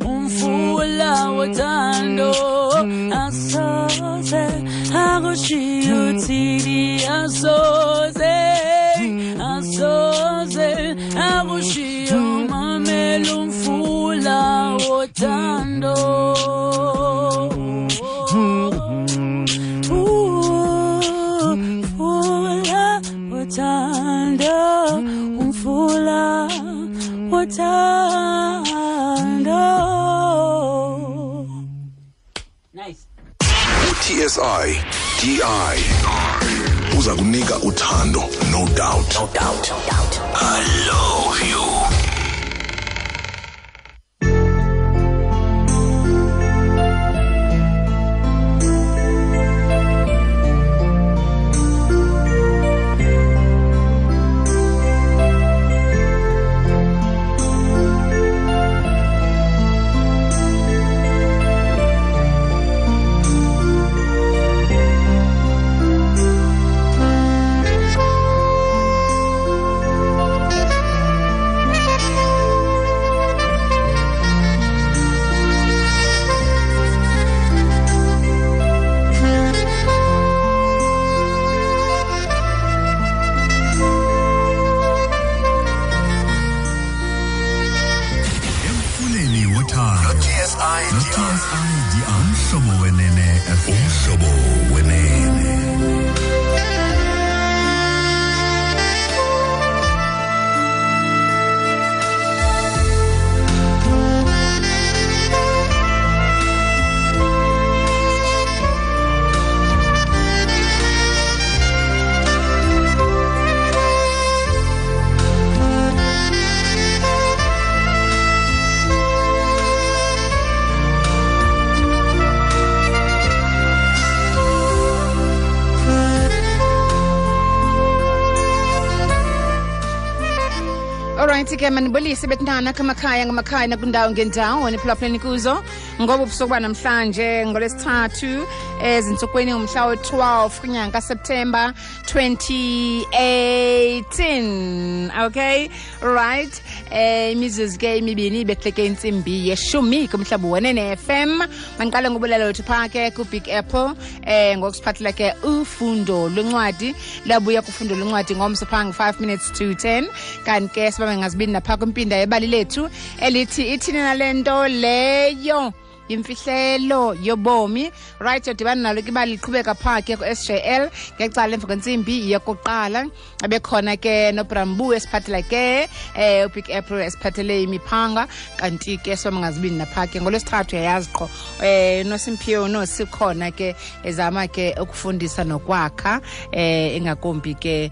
Umfula wothando asoze akushiye uthini, asoze asoze akushiye, mamela umfula wothando. Umfula wothando, umfula wothando. Nice. TSI DI uza kunika uthando, no doubt. No doubt. No doubt. I love you. Emfuleni wothando TSI no-TSI Umhlobo Wenene FM. Umhlobo Wenene. Alright ke, manibulise bethunana kumakhaya ngamakhaya nakwindawo ngendawo niphulaphuleni kuzo ngoba ubusuku banamhlanje ngolwesithathu ezintsukwini umhla we-12 kwinyanga kaSeptemba 2018. Okay, right, imizuzu ke imibini ibehleke intsimbi yeshumi kumhlobo Wenene FM. Mandiqale ngobulelo wethu phaa ke ku-Big Apple ngokusiphathela ke ufundo lwencwadi. Labuya kufundo lwencwadi ngomso phaa nge-5 minutes to 10, kanti ke sibambe ngazibini naphaa kwimpinda yebali lethu elithi ithini nale nto leyo imfihlelo yobomi. Right, yodibana nalo ke ibali liqhubeka phaa ke ku-SJL ngecala emva kwentsimbi yokuqala. Abekhona ke noBrambu esiphathela ke uBig Apple esiphathele imiphanga, kanti ke sibambe ngazibini naphaa ke ngolwesithathu uyayazi qho noSimphiwe nosikhona ke ezama ke ukufundisa nokwakha ingakumbi ke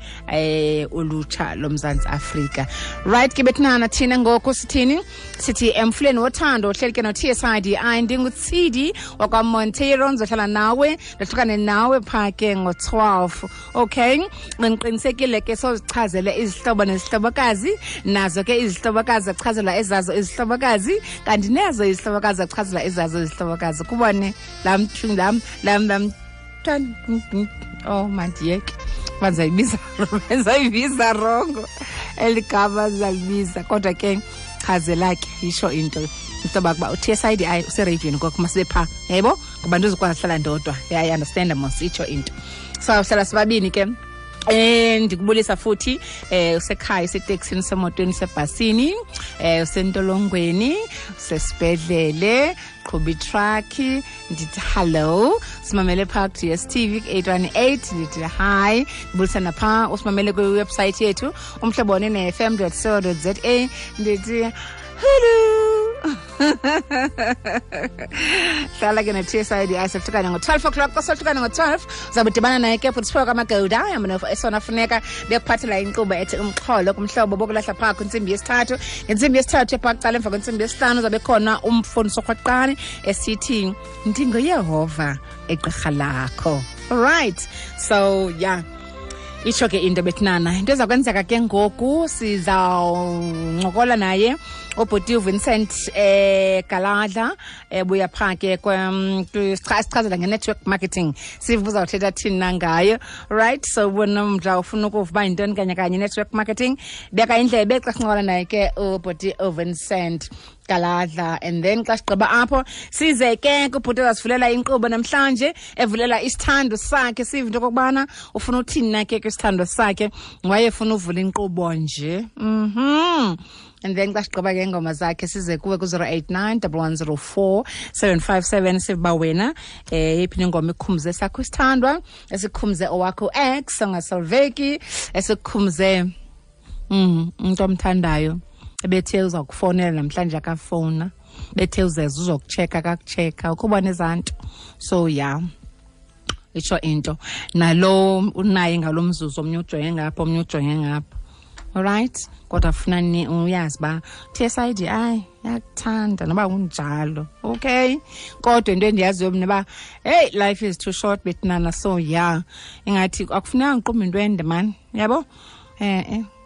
ulutsha loMzantsi Afrika. Right ke bethunana, thina ngoku sithini? Sithi emfuleni wothando uhleli ke no-TSIDI. NdinguTsidi wakwaMonteiro, ndizohlala nawe ndohlukane nawe phaa ke ngo-12. Okay, ngiqinisekile ke sozichazele izihlobo nezihlobokazi, nazo ke izihlobokazi zachazelwa ezazo izihlobokazi, kanti nezo izihlobokazi zachazelwa ezazo izihlobokazi. Kubone lam lam lam lam oh mandiyeke bandizayibiza rongo eli gama zalibiza, kodwa ke chazela ke isho into into kuba u-TSIDI usereyidweni kwakho masibe phaa, yebo, ngoba ndizokwazi hlala ndodwa. Yeah, I understand mos, itsho into. So hlala sibabini ke. Ndikubulisa futhi usekhaya, useteksini, usemotweni, usebhasini, usentolongweni, usesibhedlele, qhuba itrakhi, ndithi hello. Simamele phaa ku-DStv ku-818, ndithi hi. Ndibulisa naphaa usimamele kwiwebsayithi yethu umhlobo wenene fm.co.za, ndithi hello. Hlala ke no-TSIDI sohlukane ngo-12 o'clock. Xa sohlukane ngo-12 uzawube udibana naye ke bhuti Siphiwe kaMagoda esona funeka bekuphathela inkqubo ethi umxholo kumhlobo bokulahla phaa kwintsimbi yesithathu. Ngentsimbi yesithathu ephaa kuqala emva kwentsimbi yesihlanu uzabe khona umfundisi orhwaqane esithi ndinguYehova egqirha lakho. Alright, so yeah, itsho ke into bethunana. Into eza kwenzeka ke ngoku, sizawuncokola naye ubhuti uVincent Galadla ebuya phaa ke sichazela nge-network marketing, sive uzawuthetha thini na ngayo. Right, so ubona umdla ufuna ukuva uba yintoni kanye kanye network marketing, beka indlebe xa sincokola naye ke ubhuti uVincent Galadla. And then xa sigqiba apho size ke kubhuti ozasivulela inkqubo namhlanje, evulela isithando sakhe, sive into okokubana ufuna uthini na ke kwisithando sakhe, wayefuna uvula inkqubo nje. And then xa sigqiba ke ingoma zakhe size kuwe ku-089 1104 757, sive uba wena yeyiphi ingoma ikhumze sakho isithandwa, esikhumze owakho ex ongasolveki, esikhumze umntu omthandayo ebethe uza kufonela namhlanje akafowuna, bethe uzeza uzokutsheka akakutsheka, ukubona ezaa nto. So yeah, itsho into nalo unaye ngalo mzuzu, omnye ujonge ngapha, omnye ujonge ngapha. Alright, kodwa funa ni uyazi uba TSIDI yakuthanda noba kunjalo. Okay, kodwa into endiyaziyo mna uba hey, life is too short bethinana. So yeah, ingathi akufuneka ngiqumbe into ende mani, yabo.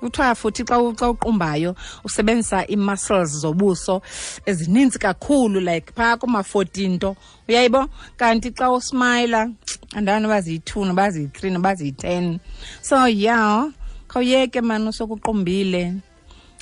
Kuthiwa futhi xa uqumbayo usebenzisa ii-muscles zobuso ezininzi kakhulu, like phaa kuma-14 nto, uyayibo. Kanti xa usmayila andani noba ziyi-2 noba ziyi-3 noba ziyi-10. So yeah, khawuyeke mani, usokuqumbile,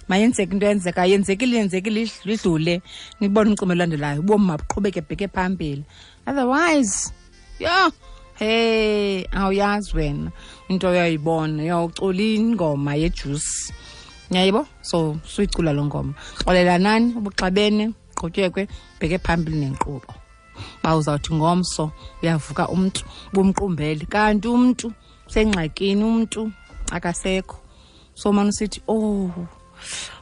mayenzeke into eyenzekayo, yenzekile, yenzekile, idlule, nibone umcimbi olandelayo, ubomi mabuqhubeke bheke phambili. Otherwise, yho, hey, awuyazi wena into oyoyibona, uyawucula ingoma yejuice, uyayibo. So suyicula loo ngoma, xolelanani ubuxabene, qhutyekwe bheke phambili nenkqubo. Uba uzawuthi ngomso uyavuka umntu bumqumbele, kanti umntu usengxakini, umntu akasekho. So mane usithi, oh,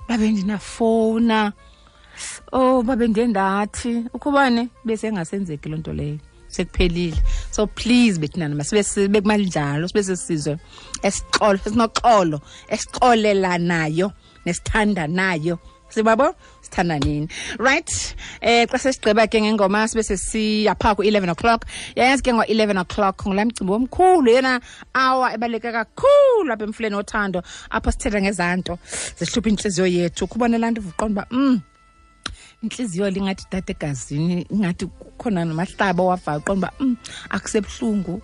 babe ndinafowuna, oh, babe ndiye ndathi ukhubane, besengasenzeki loo nto leyo, sekuphelile. So please bethinana, masibe sibe kumanjalo, sibe sisizwe esixolo, esinoxolo, esixolelanayo nesithandanayo, sibabo sithandanini. Right, xa sesigqiba ke ngengoma sibe sesiya phaa ku-11 o'clock. Yayazi ke ngo-11 o'clock ngulaa mcimbi omkhulu, yena awa ebaluleke kakhulu apha emfuleni wothando, apho sithetha ngezaa nto zihlupha intliziyo yethu. Kubona laa nto uvuqonda uba intliziyo lingathi dade egazini, ingathi kukhona namahlaba owavayo, uqonda uba akusebuhlungu,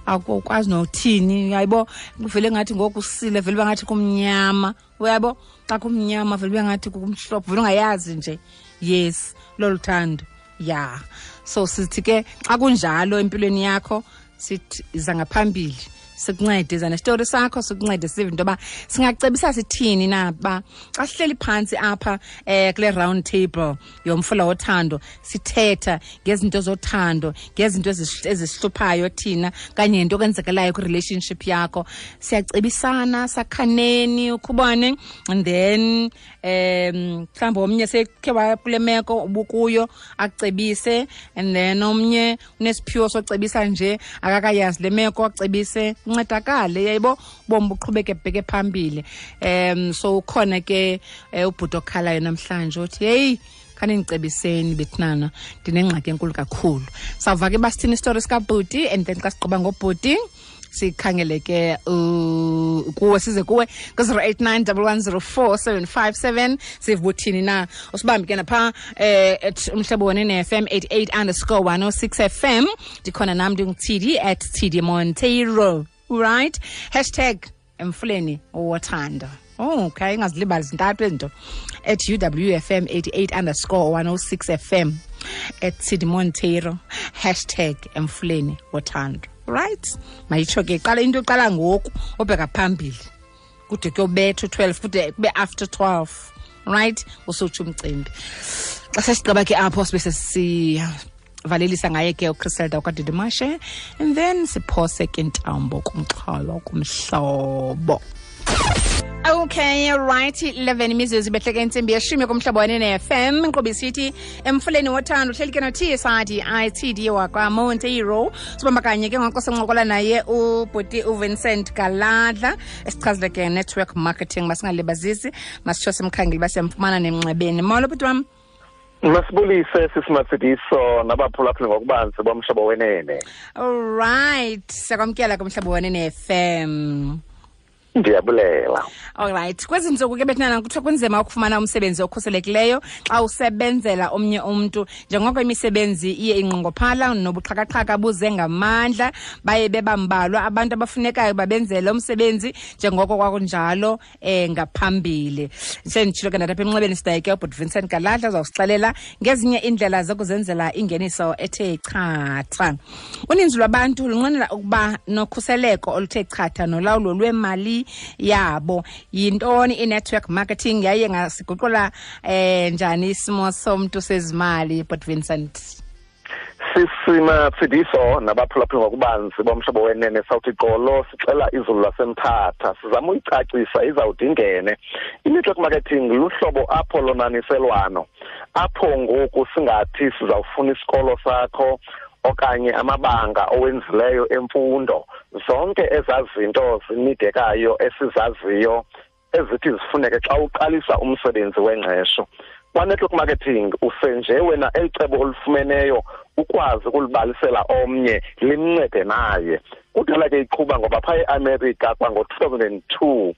akukwazi nothini, uyayibo. Kuvele ngathi ngoku usile, vele uba ngathi kumnyama, uyabo. Xa kumnyama vele ube ngathi kumhlophe, vele ungayazi nje. Yes, lolu thando ya. So sithi ke xa kunjalo empilweni yakho, sithi iza ngaphambili sikuncede, iza nesitori sakho sikuncede, sive into yoba singacebisa sithini na. Ba xa sihleli phantsi apha kule round table yomfula wothando, sithetha ngezinto zothando, ngezinto ezisihluphayo thina kanye nento okwenzekelayo kwi-relationship yakho, siyacebisana, sakhaneni ukhubane. And then mhlawumbi omnye sekhe wakule meko ubukuyo akucebise, and then omnye unesiphiwo socebisa nje akakayazi le meko, acebise, uncedakale, yayibo, ubomi buqhubeke bheke phambili. So ukhona ke ubhuti okhalayo namhlanje uthi, heyi, khanindicebiseni bethinana, ndinengxaki enkulu kakhulu. Sawuva ke basithini isitori sikabhuti, and then xa sigqiba ngobhuti sikhangele ke kuwe, size kuwe ku-089 1104 757, sive buthini na. Usibambe ke napha at Umhlobo Wenene FM 88_106 FM. Ndikhona nam, ndingu-TD at TD Monteiro. Right, hashtag emfuleni wothando. Oh, okay, ingazilibali zintathu ezinto: at UWFM 88_106 FM, at TD Monteiro, hashtag emfuleni wothando. Right, mayitsho ke qala into iqala ngoku obheka phambili kude kuyobetha u-12, kude kube after 12. Right, usutsho umcimbi. Xa sesigqiba ke apho sibe sesivalelisa ngaye ke uChriselda wakwaDidimashe, and then siphose ke intambo kumxholo kumhlobo. Okay, right, 11 imizuzu ibehleke intsimbi yeshumi kumhlobo wenene FM. Inkqubo isithi emfuleni wothando, uhleli ke no-TSID ITD wakwaMonteiro. Sibamba kanye ke ngoku sincokola naye ubhuti uVincent Galadla, esichazile ke network marketing. Masingalibazisi, masitsho simkhangele uba siyamfumana nemnxebeni. Molo bhuti wam. Masibulise sisimatsidiso nabaphulaphuli ngokubanzi bomhlobo wenene. Alright, siyakwamkela kumhlobo wenene FM. Ndiyabulela. Alright, kwezi ntsuku ke bethinana kuthiwa kunzima ukufumana umsebenzi okhuselekileyo xa usebenzela omnye umntu, njengoko imisebenzi iye inqongophala nobuxhakaxhaka buze ngamandla, baye bebambalwa abantu abafunekayo babenzele umsebenzi njengoko kwakunjalo ngaphambili. Senditshilo ke ndathi apha emnxebeni sidayike ubhuti Vincent Galadla uzawusixelela ngezinye iindlela zokuzenzela ingeniso ethe chatha. Uninzi lwabantu lunqwenela ukuba nokhuseleko oluthe chatha nolawulo lwemali yabo. Yintoni i-network marketing yaye ngasiguqula njani isimo somntu sezimali, Bhuti Vincent? Sisima Tsidiso nabaphulaphuli ngokubanzi bomhlobo wenene sawuthi gqolo sixela izulu laseMthatha, sizama uyicacisa izawude ingene. I-network marketing luhlobo apho lonaniselwano, apho ngoku singathi sizawufuna isikolo sakho okanye amabanga owenzileyo emfundo, zonke ezaa zinto zinidekayo esizaziyo ezithi zifuneke xa uqalisa umsebenzi wengqesho. Kwa-network marketing usenje wena elicebo olufumeneyo ukwazi ukulibalisela omnye limncede naye. Kudala ke iqhuba ngoba phaa eAmerica kwango-2002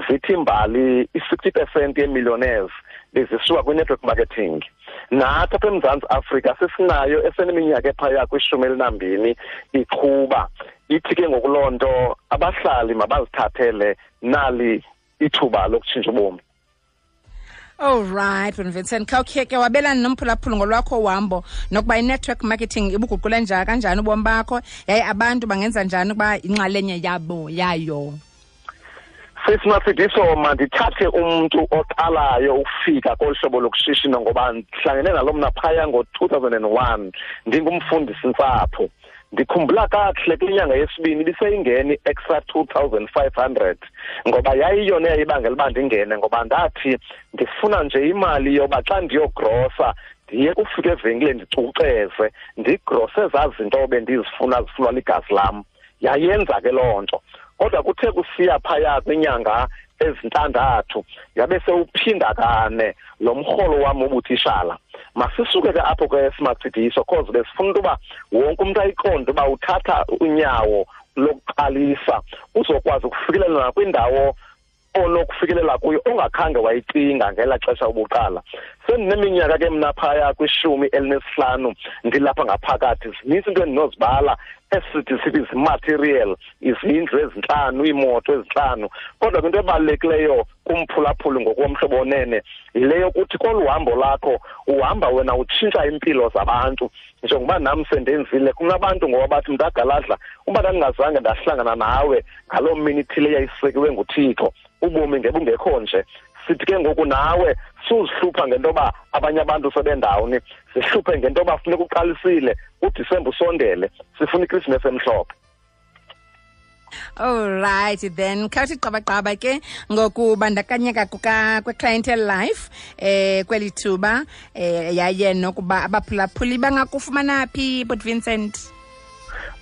zithi imbali i-60% yee-millionaires bezisuka kwi-network marketing. Nathi apha eMzantsi Afrika sesinayo eseneminyaka ephaya kwi-12 iqhuba. Ithi ke ngoku loo nto abahlali mabazithathele nali ithuba lokutshintsha ubomi. All right, Vincent, khawukhe ke wabelana nomphulaphuli ngolwakho uhambo nokuba i-network marketing ibuguqule njani kanjani ubomi bakho, yaye abantu bangenza njani ukuba inxalenye yabo yayo. Sisimatsidiso, mandithathe umntu oqalayo ukufika kolu hlobo lokushishino ngoba ndihlangene nalo mna phaya ngo-2001 ndingumfundisi ntsapho. Ndikhumbula kakuhle kwinyanga yesibini ibiseyingene i-extra 2500 ngoba yayiyona eyayibangela uba ndingene, ngoba ndathi ndifuna nje imali yoba xa ndiyogrosa ndiye kufika evenkileni ndicuceze ndigrose ezaa zinto bendizifuna zifunwa ligazi lam. Yayenza ke loo nto. Kodwa kuthe kusiya phaya kwinyanga ezintandathu yabe sewuphinda kane lo mrholo wam wobutishala. Masisuke ke apho ke Simatsidiso, cause besifuna into yoba wonke umntu ayiqonde uba uthatha unyawo lokuqalisa uzokwazi ukufikelela nakwindawo onokufikelela kuyo ongakhange wayicinga ngelaa xesha ubuqala. Sendineminyaka ke mna phaya kwi-15 ndilapha ngaphakathi, zinintsi into endinozibala esithi sithi zimaterial, izindlu ezintlanu, iimoto ezintlanu. Kodwa ke into ebalulekileyo kumphulaphuli ngokomhlobo onene yile yokuthi kolu hambo lakho uhamba wena utshintsha iimpilo zabantu. Njengoba nam sendenzile, kunabantu ngoba bathi mntagaladla, uba ndandingazange ndahlangana nawe ngaloo mini ithile yayisekiwe nguThixo, ubomi ngebungekho nje. Sithi ke ngoku nawe suzihlupha ngento yoba abanye abantu sebendawuni, zihluphe ngento yoba funeka uqalisile, uDisemba usondele, sifuna iKrisimesi emhlophe. All right then, khawuthi qabaqaba ke ngokubandakanyeka kwe-Clientele Life kweli thuba yaye nokuba abaphulaphuli bangakufumana phi, Bhuti Vincent?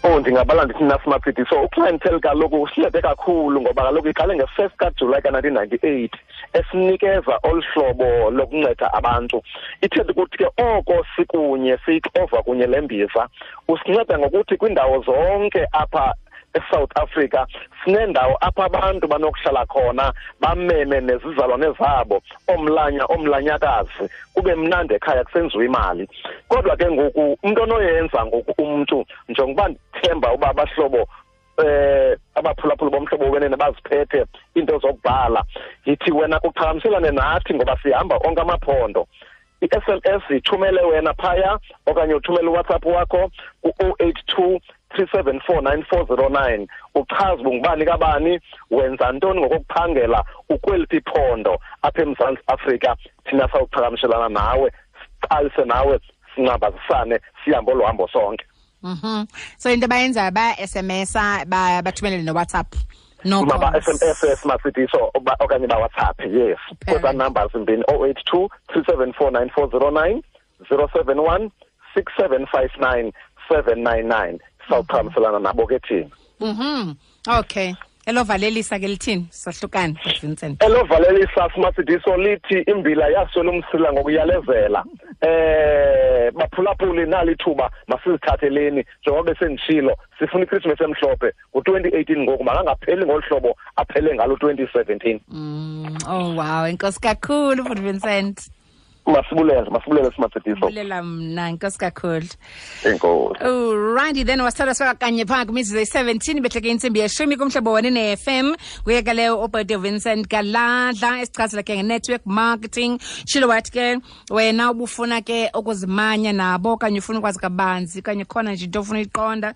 Oh, ndingabala ndithi nasimaphidi. So uClientele kaloku usincede kakhulu ngoba kaloku iqale nge-1 kaJulayi ka-1998 esinikeza olu hlobo lokunceda abantu. Ithetha ukuthi ke oko sikunye siyixova kunye le mbiza, usinceda ngokuthi kwiindawo zonke apha eSouth Africa sinendawo apha abantu banokuhlala khona bameme nezizalwane zabo, omlanya omlanyakazi, kube mnandi ekhaya kusenziwa imali. Kodwa ke ngoku umntu onoyenza ngoku umntu, njengokuba ndithemba uba abahlobo abaphulaphuli bomhlobo wenene baziphethe iinto zokubhala, yithi wena kuqhagamshelane nathi ngoba sihamba onke amaphondo. I-SMS ithumele wena phaya okanye uthumele uWhatsApp wakho ku-082 374 9409, uchaze ungubani kabani, wenza ntoni ngokokuphangela, ukweliphi iphondo apha eMzantsi Afrika. Thina sawuqhagamshelana nawe, siqalise nawe, sincambazisane, sihambe olu hambo sonke. So into abayenzayo baya-SMS-a, bathumelele noWhatsApp. No maba-SMS Simatsidiso okanye baWhatsApp, yes. Kwezaa numbers zimbini, 082 374 9409, 071 6759 799. Sawuqhagamselana nabo ke thina. Okay. Elovalelisa ke lithini? Sahlukane, Vincent. Elovalelisa Simatsidiso lithi imbila yaswela umsila ngokuyalezela. Baphulaphuli, nali ithuba, masizithatheleni njengoba besenditshilo, sifuna iChristmas emhlophe ngo-2018 ngoku, makangapheli ngolu hlobo aphele ngalo 2017. Oh wow, enkosi kakhulu futhi Vincent. Masibulele simatsediso. Bulela mna, enkosi kakhulu. Enkosi. Alrighty then, wasithatha sifaka kanye phaa kwimizuzu eyi-17 behleke intsimbi yeshumi kumhlobo wene ne-FM. Nguye ke leyo ubhuti Vincent Galadla esichazela ke nge-network marketing. Tshilo wathi ke wena ubufuna ke ukuzimanya nabo okanye ufuna ukwazi kabanzi okanye khona nje into ofuna uyiqonda,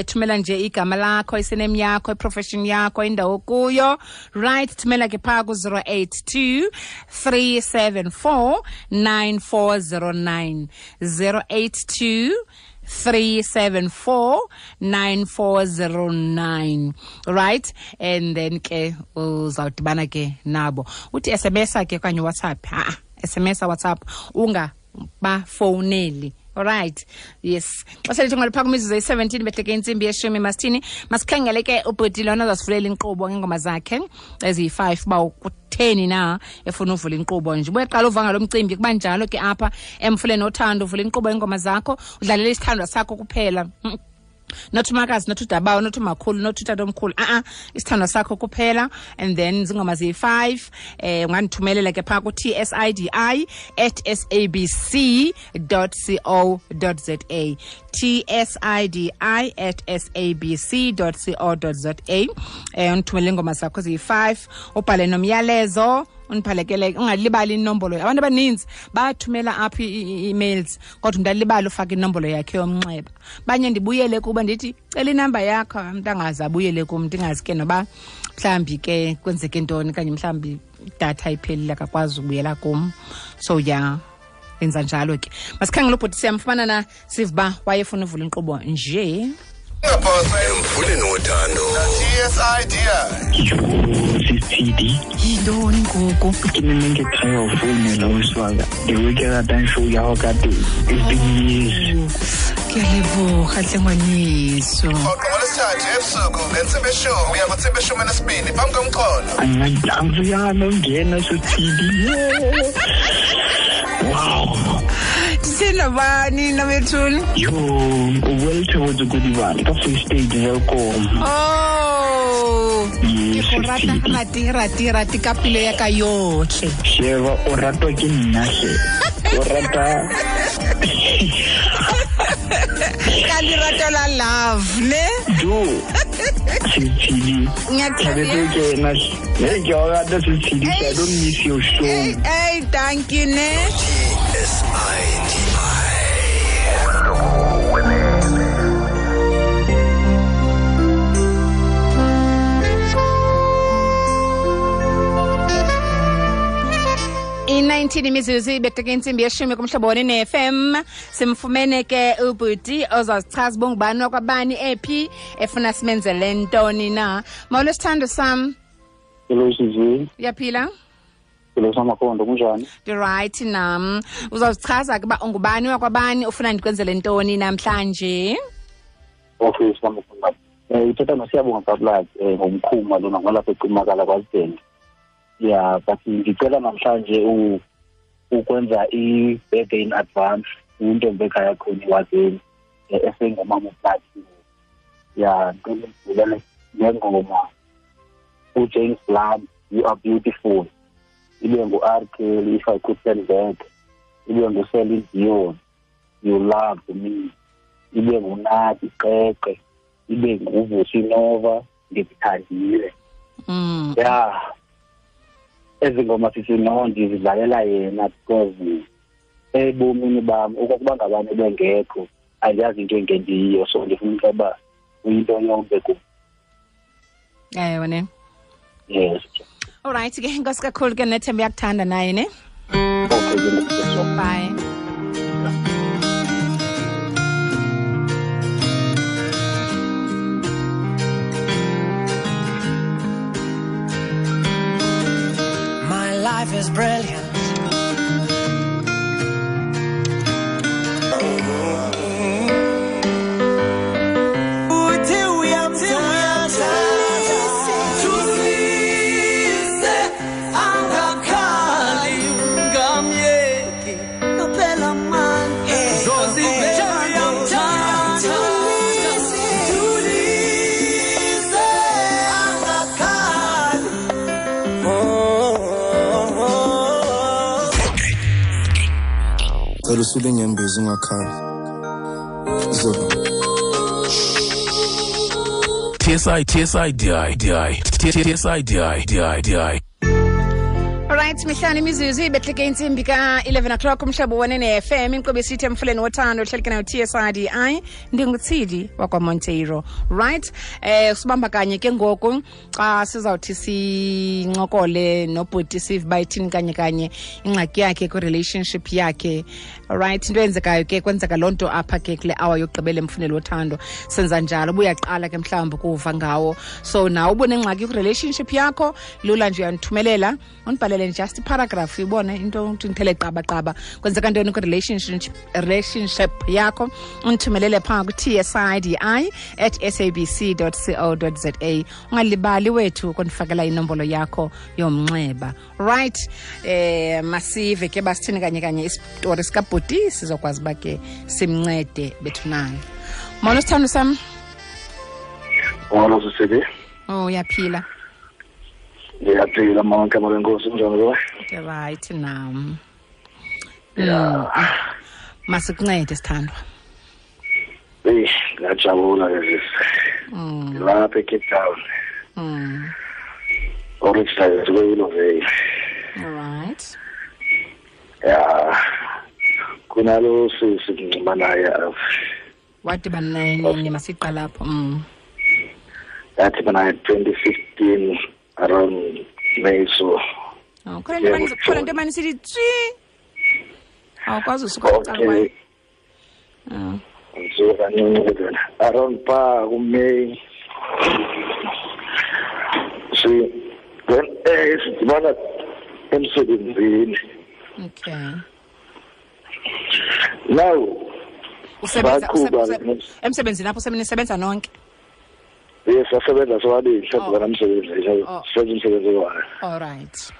thumela nje igama lakho, isename yakho, iprofession yakho, indawo kuyo. Right, thumela ke phaa ku-082 374 9409, 082 374 9409. Right, and then ke uzawudibana ke nabo. Uthi SMS ke okanye WhatsApp, ha SMS, WhatsApp, ungabafowuneli. Alright, yes, xa selithi ngalipha kwimizuzu eyi-17 behleke intsimbi yeshumi, masithini, masikhangele ke ubhuti lona azasivulela inkqubo ngeengoma zakhe eziyi-5 uba kutheni na efuna uvula inkqubo nje. Ubuyeqala uva ngalo mcimbi, kuba njalo ke apha emfuleni othando, uvula inkqubo yeengoma zakho, udlalele isithandwa sakho kuphela. Not umakazi, not udabawo, not umakhulu, not utatomkhulu, isithandwa sakho kuphela. And then zingoma ziyi-5. Ungandithumelela ke phaa ku-tsidi@sabc.co.za, tsidi@sabc.co.za. Undithumele iingoma zakho ziyi-5, ubhale nomyalezo, undiphalekele, ungalibali inombolo. Abantu abaninzi bathumela apha ii-emails, kodwa umntu alibale ufaka inombolo yakhe yomnxeba. Banye ndibuyele kuba ndithi cela inamba yakho, umntu angaze abuyele kum, ndingazi ke noba mhlawumbi ke kwenzeke ntoni, okanye mhlawumbi idatha iphelile akakwazi ukubuyela kum. So ya, enza njalo ke. Masikhangele ubhuti, siyamfumana na, sive uba wayefuna uvula inkqubo nje. Ungaphosa emfuleni wothando. TSIDI. Sisithidi. Yintoni ngoku? Ke ne nne ke try ho founela ausi wa ka. The way ke ratang show ya hao ka teng. It's been years. Ke a leboga tle ngwaneso. Rhoqo ngolwesithathu ebusuku ngentsimbi yeshumi uya kwintsimbi yeshumi enesibini phambi komxholo. Angiyana ungena Sisithidi. Wow. Ndisendabani nabethuni? Yo, o well towards Godibane ka Free State Welkom. Oh. Ke go rata rati rati rati ka pelo ya ka yotlhe. Sheba o ratwa ke nna hle. O rata ka lerato la love ne? Do. Sisithidi. Ngiyakuthanda. Ke na. Hey, ke o rata Sisithidi. I don't miss your show. Hey, hey, thank you ne. SIDI. I-19 imizuzu ibetheke intsimbi yeshumi kumhlobo wone-FM. Simfumene ke ubhuti ozazichaza uba ungubani wakwabani, ephi, efuna simenzele ntoni na. Molo sithando sam. Hello Sisi. Uyaphila? Hello Samakhondo, kunjani? Ndirayithi nam. Uzawuzichaza ke uba ungubani wakwabani, ufuna ndikwenzele ntoni namhlanje? Okay Samakhondo. Uthetha noSiyabonga Kabulaki, ngomkhuma lona ngolapha eCimakala kwaZidenge. Yeah, but ngicela namhlanje ukwenza i-birthday in advance intombi ekhaya khona iwazeni esengumama uPlatinum. Yeah, ngicela ngivulele ngengoma uJames Blunt, You Are Beautiful. Ibe ngu-R Kelly, If I Could Turn Back. Ibe ngu-Celine Dion, You Loved Me. Ibe nguNathi Qeqe. Ibe nguVusi Nova, Ndikuthandile. Yeah. Ezi ngoma sisi no ndizidlalela yena because ebomini bam okokuba ngabani bengekho andiyazi into engendiyiyo, so ndifuna ukuba uyinto yonke kum. Ewe ne. Yes. Alright ke, enkosi kakhulu ke, nethemba uyakuthanda naye ne. Okay, ke. Bye. My life is brilliant. Cela usule inyembezi ungakhali. Zoba. TSI TSI DI DI TSI DI DI DI. Alright, mihlanu imizuzu ibehleke intsimbi ka-11 o'clock umhlobo wenene FM inkqubo esithi emfuleni wothando ohleleke nayo TSIDI ndinguTsidi wakwaMonteiro. Right, sibamba kanye ke ngoku xa sizawuthi sincokole nobhuti sive uba ithini kanye kanye ingxaki yakhe kwi-relationship yakhe. Alright, into eyenzekayo ke kwenzeka loo nto apha ke kule hour yokugqibela emfuneli wothando. Senza njalo ubuyaqala ke mhlawumbi ukuva ngawo, so nawe ubunengxaki kwi-relationship yakho, lula nje uyandithumelela undibhalele just iparagraph ibone into uthi ndithele qabaqaba kwenzeka ntoni kwi-relationship yakho, undithumelele phaa ku-tsidi@sabc.co.za. Ungalibali wethu ukundifakela inombolo yakho yomnxeba. Right, masive ke basithini kanye kanye isitori sikabhuti sizokwazi uba ke simncede bethu nayo. Molo sithando sam. Molo sisibi. Oh, uyaphila? Ndiyaphila mama, ngegama lenkosi, kunjani kuwe? Right nam. Ya. Masikuncede sithandwa. Eyi, ngiyajabula ke sisi. Ngilapha eCape Town. Originally kwe-Willowvale. Alright. Ya. Kunalo sisi ngincuma naye apha. Wadibana naye nini? Masiqala apho. Ndadibana naye 2015 around May, so. Oh, khona into emane isithi tsi. Awukwazi usuka kuqala kwayo. Ngisuka kancinci ke around pha ku-May. Si then sidibana emsebenzini. Okay. Now usebenza emsebenzini apho nisebenza nonke? Yes, sasebenza sobabili, sadibana emsebenzini, senza umsebenzi wayo. All right.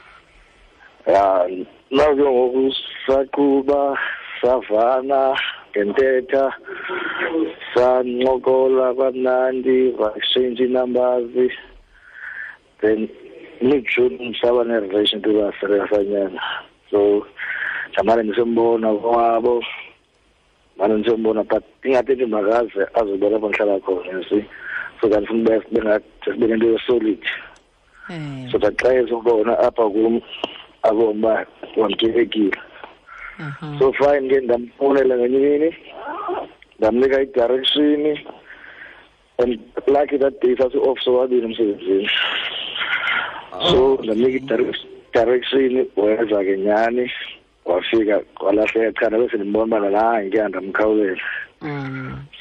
Ya, now ke ngoku saqhuba savana ngentetha, sancokola kamnandi, exchange numbers. Then mid-June saba ne-relationship basanyana. So ndamane ndisembona kwabo, mane ndisembona, but ingathi nje makaze azobona apho ndihlala khona, you see. So that ndifuna sibe nento ye-solid. So that xa ezobona apha kum abone uba wamkelekile. So fine ke ndamfonela ngenye imini, ndamnika i-direction, and lucky that day sasi-off sobabini emsebenzini. So ndamnika i-direction, weza ke nyhani, wafika kwalahleka cha ndabe sendimbona uba nalaa ke andamkhawulela.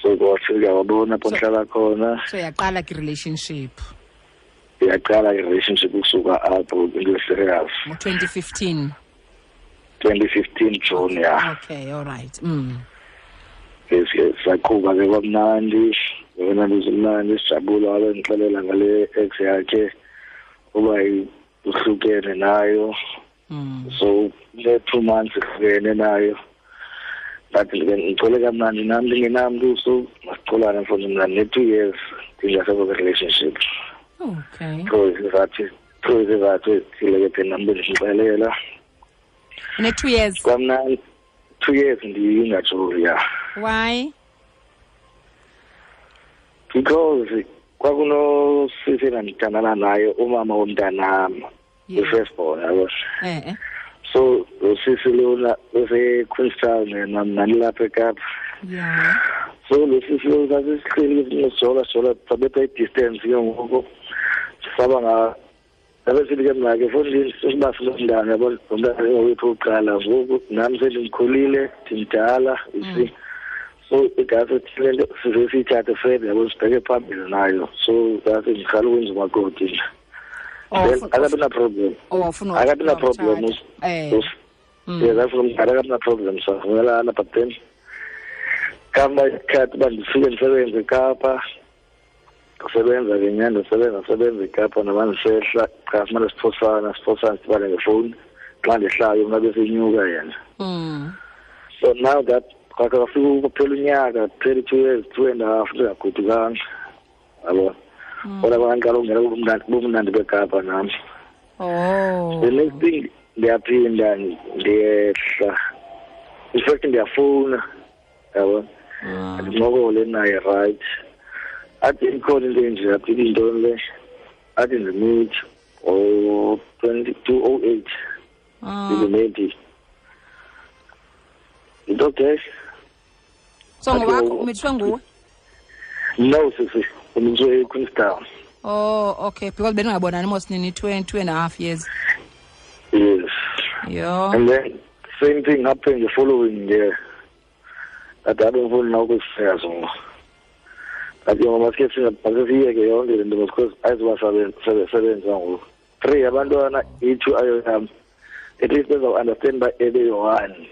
So wafika wabona apho ndihlala khona. So yaqala ke relationship. Yaqala i-relationship ukusuka apho into serious. Ngo-2015. 2015 June, ya. Okay, all right. Yes, saqhuba ke kwamnandi, kwamnandi sijabula, wabe ndixelela ngale ex yakhe uba uhlukene nayo. So le 2 months ihlukene nayo. But ngicole kamnandi nami ndingenamntu, so masicolane mfondini mna ne-2 years ndingasekho kwi-relationship. Okay. Through izizathu ezithile ke thina nam bendixelela. Ne-2 years? Kwamnandi 2 years ndingajoli, ya. Why? Because kwakunosisi endandithandana naye, umama womntanam, i-first born, yabo. So lo sisi lona use-Queenstown yena, mna ndilapha eKapa. Yeah. So lo sisi lona sasisihleli sijola sijola, sabetha i-distance ke ngoku, saba nga ndabe sithi ke mna ke fondini siba sinomntana, yabo, lo mntana wethu wokuqala ngoku, nam sendimkhulile, ndimdala, you see. So igazi le nto size siyithathe further, yabo, sibheke phambili nayo. So ngathi ndiqala ukwenza umakoti nje. Then akabi na-problem. Akabi na-problem. Yes, afuna umntana, akabi na-problem, savumelana, but then kamba isikhathi uba ndifike ndisebenze eKapa, ndisebenza ke nyhani, ndisebenza eKapa, noba ndisehla cha simane siphosana sidibane ngefowuni, xa ndihlayo mna besenyuka yena. So now that kwafika kuphela unyaka, kuphela 2 years, 2.5 ndingagodukanga, yabo. Kodwa kwandiqala ukungena bumnandi beKapa nam. Oh. The next thing ndiyaphinda ndiyehla In fact ndiyafuna, yabona, ndincokole naye, right? Athi ikhona into enje, athi intoni le, athi ndimithi o 2208 ndimithi into okay. So ngowakho, umithiswe nguwe? No sisi, umithiswe eQueenstown. Oh, okay, because beningabonani mos nini 2.5 years. Yes. Yo. And then same thing happened the following year. That I don't know ngoku. Athi maske siyeke yonke le nto because ayizoba sebenza ngoku. Three abantwana, i-two ayo yam. At least bezawu-understand uba ebeyi-one.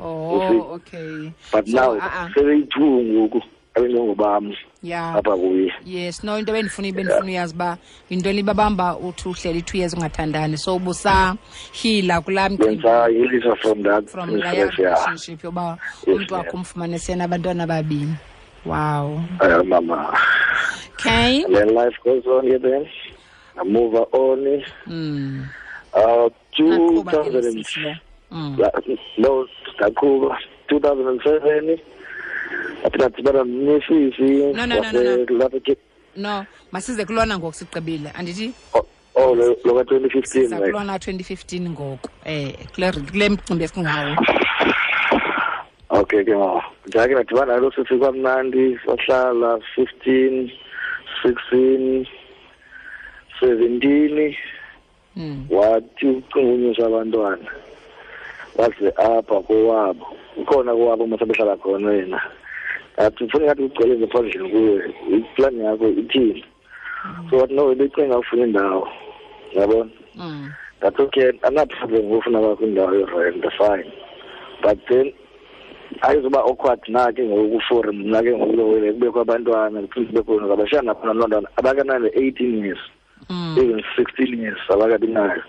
Oh, okay. But so, now sebeyi-two ngoku abengengobam apha kuye. Yes, no, into bendifuna uyazi uba yintoni babamba uthi uhleli 2 years ungathandani, so ubusahila kulaa mcimbi. Bendisahilisa from that from leya relationship yoba umntu wakho umfumane senabantwana ababini. Wow. Mama. Okay. And then life goes on here then. I move on. 2000 no, ndaqhuba 2007, athi ndadibana nesisi. No. No, masize kulona ngoku, sigqibile, andithi? Oh, lo ka-2015. Siza kulona 2015 ngoku, kule mcimbi esingawo. Okay ke mama, ndake ndadibana nalo sisi, kwamnandi, sahlala 15, 16, 17. Wathi ucinga unyusa abantwana, waze apha kowabo, ukhona kowabo masabehlala khona yena. Athi ufuna ngathi ugcwele ngaphandle kuwe, iplani yakho ithini? So wathi no, ebecinga ufuna indawo, yabona. That's okay, andina-problem ngofuna kwakho indawo yorent, fine, but then ayizuba awkward na ke ngoku for mna ke ngoku kubekho abantwana, kuphinde kube khona abashana abantwana abakanane 18 years, even 16 years abakabi nayo.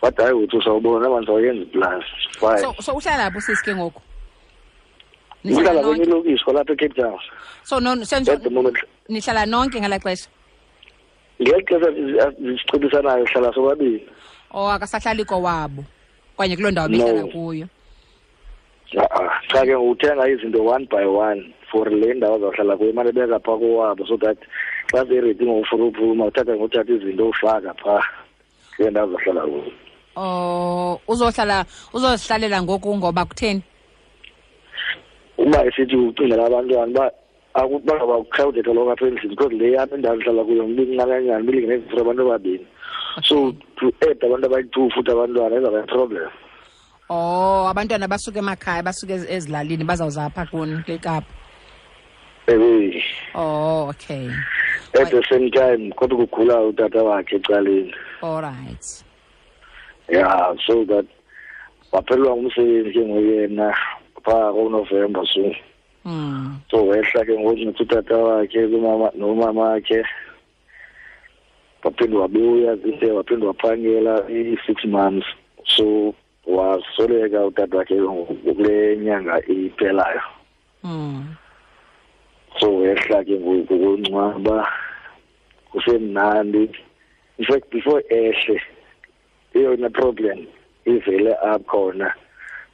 But hayi, uthi usawubona abantu awayenza plus fine. So uhlala lapho sisi ke ngoku? Uhlala kwenye ilokishi kwalapha eCape Town. So no, senzo at the moment. Nihlala nonke ngalaa xesha? Ngeli xesha sicebisanayo, hlala sobabini. Oh, akasahlali kowabo okanye kuloo ndawo behlala kuyo? Cha ke, uthenga izinto one by one for le ndawo azawuhlala kuyo, imane beka phaa kowabo, so that xa seredi ngokufuna uphuma, uthatha ngothatha izinto ufaka phaa kule ndawo azohlala kuyo. Oh, uzohlala, uzozihlalela ngoku ngoba kutheni? Uba esithi ucingela abantwana uba bangaba crowded kaloku apha endlini, because le yam indawo ndihlala kuyo mbincakanyana, bilingene for abantu ababini, so to add abantu abayi-two futhi abantwana izawuba yi-problem. Oh, abantwana basuke emakhaya, basuke ezilalini, bazawuza apha kuni kule Kapa. Ewe. Oh, okay. At the same time kodwa kugula utata wakhe ecaleni. All right. Yeah, so that waphelelwa ngumsebenzi ke ngoyena phaa koNovemba, so so wehla ke ngoku nothi utata wakhe kumama nomama wakhe, waphinde wabuya zide, waphinde waphangela i-6 months, so wasweleka utata wakhe kule nyanga iphelayo. So wehla ke ngoku kungcwaba, kusemnandi. In fact, before ehle, eyona problem ivele akhona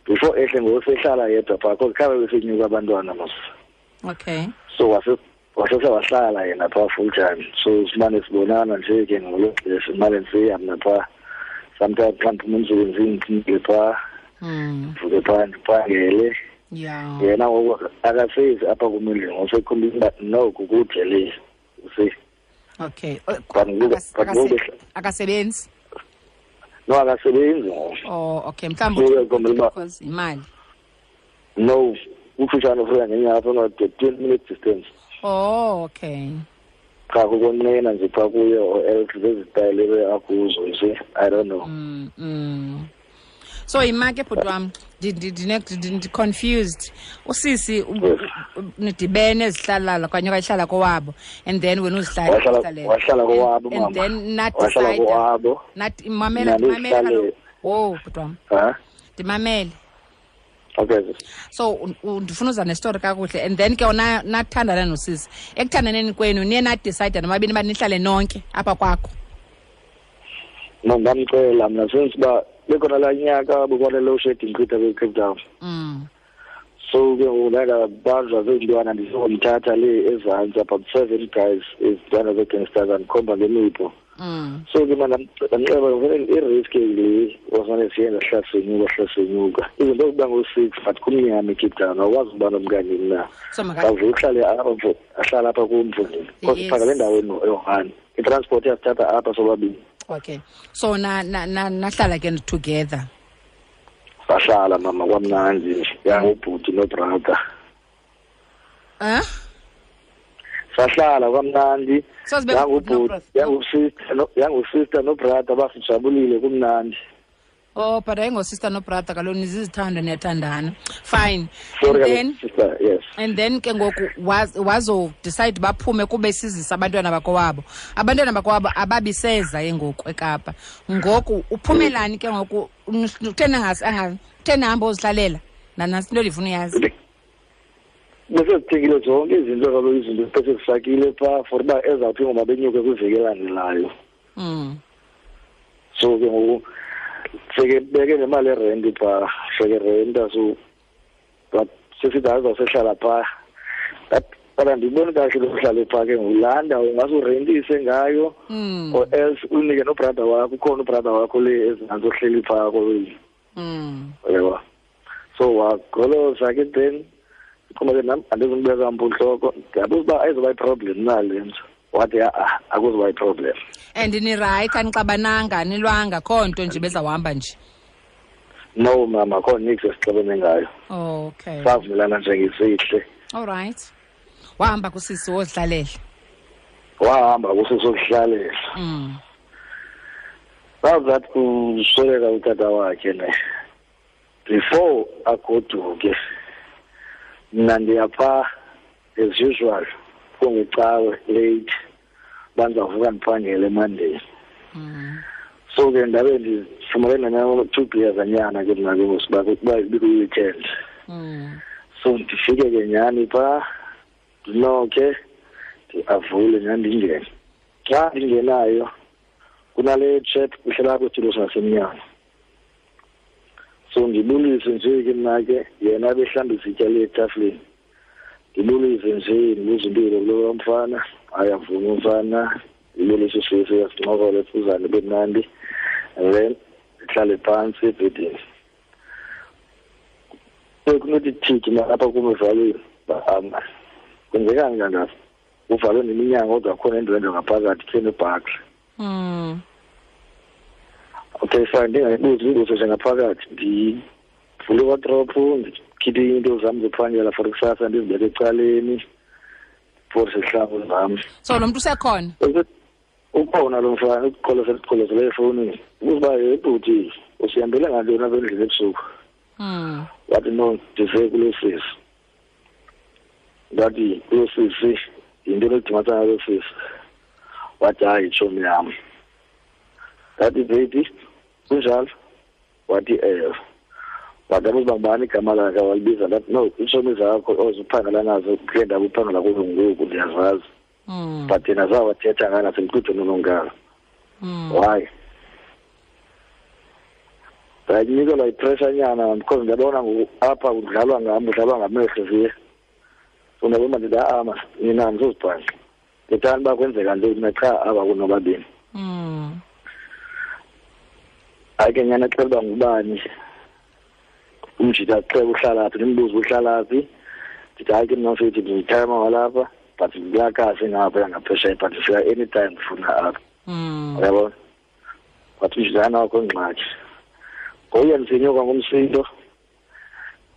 before ehle ngoku, sehlala yedwa phaa, cause khabe besenyuka abantwana mos. So wasese wahlala yena phaa full time, so simane sibonana nje ke ngolo xesha, simane ndisiya mna phaa sometimes xa ndiphuma emsebenzini, ndimke phaa, ndivuke phaa, ndiphangele. Yena ngoku akasezi apha kum endlini, ngosekhombisa uba no, kukude le, you see. Okay. But ngoku Akasebenzi? No, akasebenzi ngoku. Oh, okay, mhlawumbi So, uyakhombela uba because imali. No, ukufutshane ufika ngenyawo apha, 20 minutes distance. Oh, okay. Cha, kukonqena nje phaa kuye or else zezitayile akuzo, you see, I don't know. So yima ke, bhuti wam, ndi-confused. Usisi nidibene ezihlalala okanye wayehlala kowabo and then wena uzihlala Wahlala kowabo, and mama. then Wahlala nadecide kowabo. Nathi mamela, Mna mamela kaloku. ndizihlale. Oh, bhuti wam, Ha. ndimamele. Okay. So ndifuna uza nestori kakuhle, and then ke wona nathandana nosisi, ekuthandaneni kwenu niye nadecide nomabini uba nihlale nonke apha kwakho? No, ndamcela mna since uba Bekhona laa nyaka bekwane load shedding chitha kwi-Cape Town. So ke ngoku ndaye ndabanjwa ziintwana, ndisongomthatha le ezantsi, about 7 guys, izintwana zee-gangsters, andikhomba ngemipu. So ke mna ndamxeba vele i-risk le wasimane siyenza, sihlala senyuka, sihlala senyuka. Izinto zokuba ngo-6, but kumnyama eCape Town, awukwazi ukuba nomkanye na. So maka- Awuvele uhlale apha, mfo, ahlale apha kum, mfondini. Because siphangela endaweni eyi-one. I-transport iyasithatha apha sobabini. Okay. So nahlala ke together. Sahlala mama, kwamnandi nje. Yangubhuti nobrother. Sahlala kwamnandi. So sibe ngubhuti Yangubhuti, nobrother. yangusister no, yangusister nobrother, basijabulile kumnandi. Oh, but ayingosister nobrother kaloku, nizizithanda, niyathandana. Fine. Sorry, And then kaloku, sister, yes. And then ke ngoku wazo decide baphume kube sizisa abantwana bakowabo. Abantwana bakowabo ababiseza ke ngoku eKapa. Ngoku uphumelani ke ngoku, uthena ngasi, anga, uthena hamba ozihlalela? Nantsi into endifuna uyazi. Bese zithengile zonke izinto kaloku, izinto bese zifakile phaa for uba ezawuthi ngoba benyuke kwiveki elandelayo. So ke ngoku seke beke nemali erenti phaa, seke renta, so but sesithi hayi uzawusehlala phaa. But andiyiboni kahle lo uhlale phaa ke ngoku. Laa ndawo ungase urentise ngayo, or else unike nobrother wakho, ukhona ubrother wakho le ezantsi ohleli phaa kowenu. Uyabo? So wagoloza ke then, ndiqonda ke nam andizundibeka mpu ntloko. Ndiyabuza uba ayizuba yi-problem na le nto. Wathi ha-a, akuzuba yi-problem. And nirayithi, anixabananga, anilwanga, akho nto nje bezawuhamba nje? No mama, akho niks esixabene ngayo. Okay. Savumelana nje ngesihle. All right. Wahamba kusisi wozihlalela? Wahamba kusisi wozihlalela. Bazathi kusweleka utata wakhe ne. Before agoduke, mna ndiyapha as usual, kungecawe late, bandizavuka ndiphangele eMonday. So ke ndabe ndifumene nanyana 2 beers anyana ke mna ke ngoku, kuba ibikwi-weekend. So ndifike ke nyhani phaa, ndinokhe, ndiavule nyhani ndingene. Xa ndingenayo, kunale chap kuhlala apho esitulo sasemnyango. So ndibulise nje ke mna ke, yena ebehlamba izitya le etafileni. Ndibulise nje, ndibuze impilo kulo mfana, hayi avume umfana, ndibulise usisi, sincokole, sifuzane kube mnandi. And then ndihlale phantsi ebhedini. Bekunothi thithi mna apha kum evalweni, bahamba. Kwenzekani kangaka? Kuvalwe neminyango kodwa khona indwendwe ngaphakathi, khe nebhakhi. Okay, fine, ndingayibuzi imibuzo nje ngaphakathi. Ndivule iwadrophu, ndikhiphe iinto zam zophangela for kusasa, ndizibeke ecaleni for sihlangu zam. So lo mntu usekhona? Ukhona lo mfana, uqolosele efowunini. Ubuza uba, hey, bhuti, usihambele ngantoni apha endlini ebusuku? Wathi, no, ndize kulo sisi. Ndathi, kulo sisi, yinto enodimatsana nalo sisi. Wathi, hayi, tshomi yam. Ndathi, baby, kunjalo? Wathi, ewe. Wathi, abuza uba ngubani igama lakhe, walibiza. Ndathi, no, iitshomi zakho oziphangela nazo kule ndawo uphangela kuzo ngoku, ndiyazazi. But yena zawathetha ngayo nasemqudweni ononkala. Why? Ndayinikelwa yipressure nyana because ndiyabona ngoku apha kudlalwa ngam, kudlalwa ngamehlo ziye. So ndiyabona ndithi, ha-a, mas, nina andizozibhanxa. Ndithanda uba kwenzeka ntoni na qha aba kunobabini. Hayi ke nyana, xela uba ngubani. Umjita xela uhlala phi, ndimbuze uhlala phi. Ndithi hayi ke mna mfethu, ndiyithayima walapha, but ndiyakasi ngapha ngaphesheya, but ndifika anytime ndifuna apha. Uyabona? Wathi umjita hayi nakho ingxaki. Ngokuya ndisenyuka ngomsindo,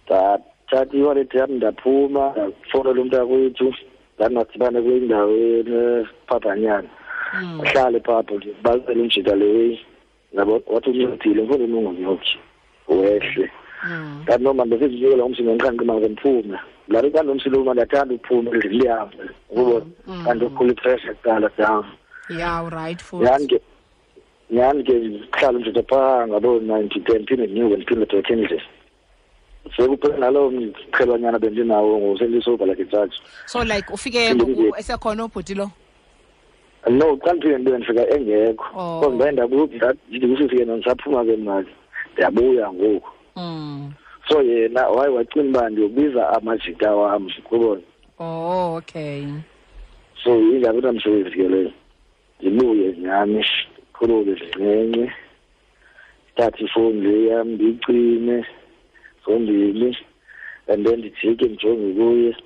ndathatha iwallet yam ndaphuma, ndafowunela umntakwethu, ndathi madibane kule ndawo enephaphanyana. Ahlale phaa, ndibalisele umjita le way. Yabo, wathi uncedile, mfundini ungonyoki, wehle. Ndathi no, man, besizinyukela ngomsindo, ndiqhanqe imali ke ndiphume. Laa nto xa ndinomsindo, man, ndiyathanda uphuma endlini ndihambe, ukubona. Kanti ukhula ipressure kuqala down. Yeah, right, futhi. Nyhani ke, nyhani ke ndihlala umjita phaa ngabo 9 to 10, ndiphinde ndinyuke, ndiphinde back endlini. Sekuphela naloo mqhelwanyana bendinawo ngoku, sendisoba like ijaji. So like ufike Phinde ngoku ndibe esekhona ubhuti lo? No, xa ndifike ndibe ndifika engekho. Oh. Because ndaye ndaku-, ndithi kusisi ke ndisaphuma ke mna ke. Ndiyabuya ngoku. So yena waye wacinga uba ndiyobiza amajita wam, kubona. Oh, okay. So ingabi namsebenzi ke leyo. Ndibuye nyhani, ndikhulule zincinci, ndithathe ifowuni le yam ndiyicime zombini, and then ndijike ndijonge kuye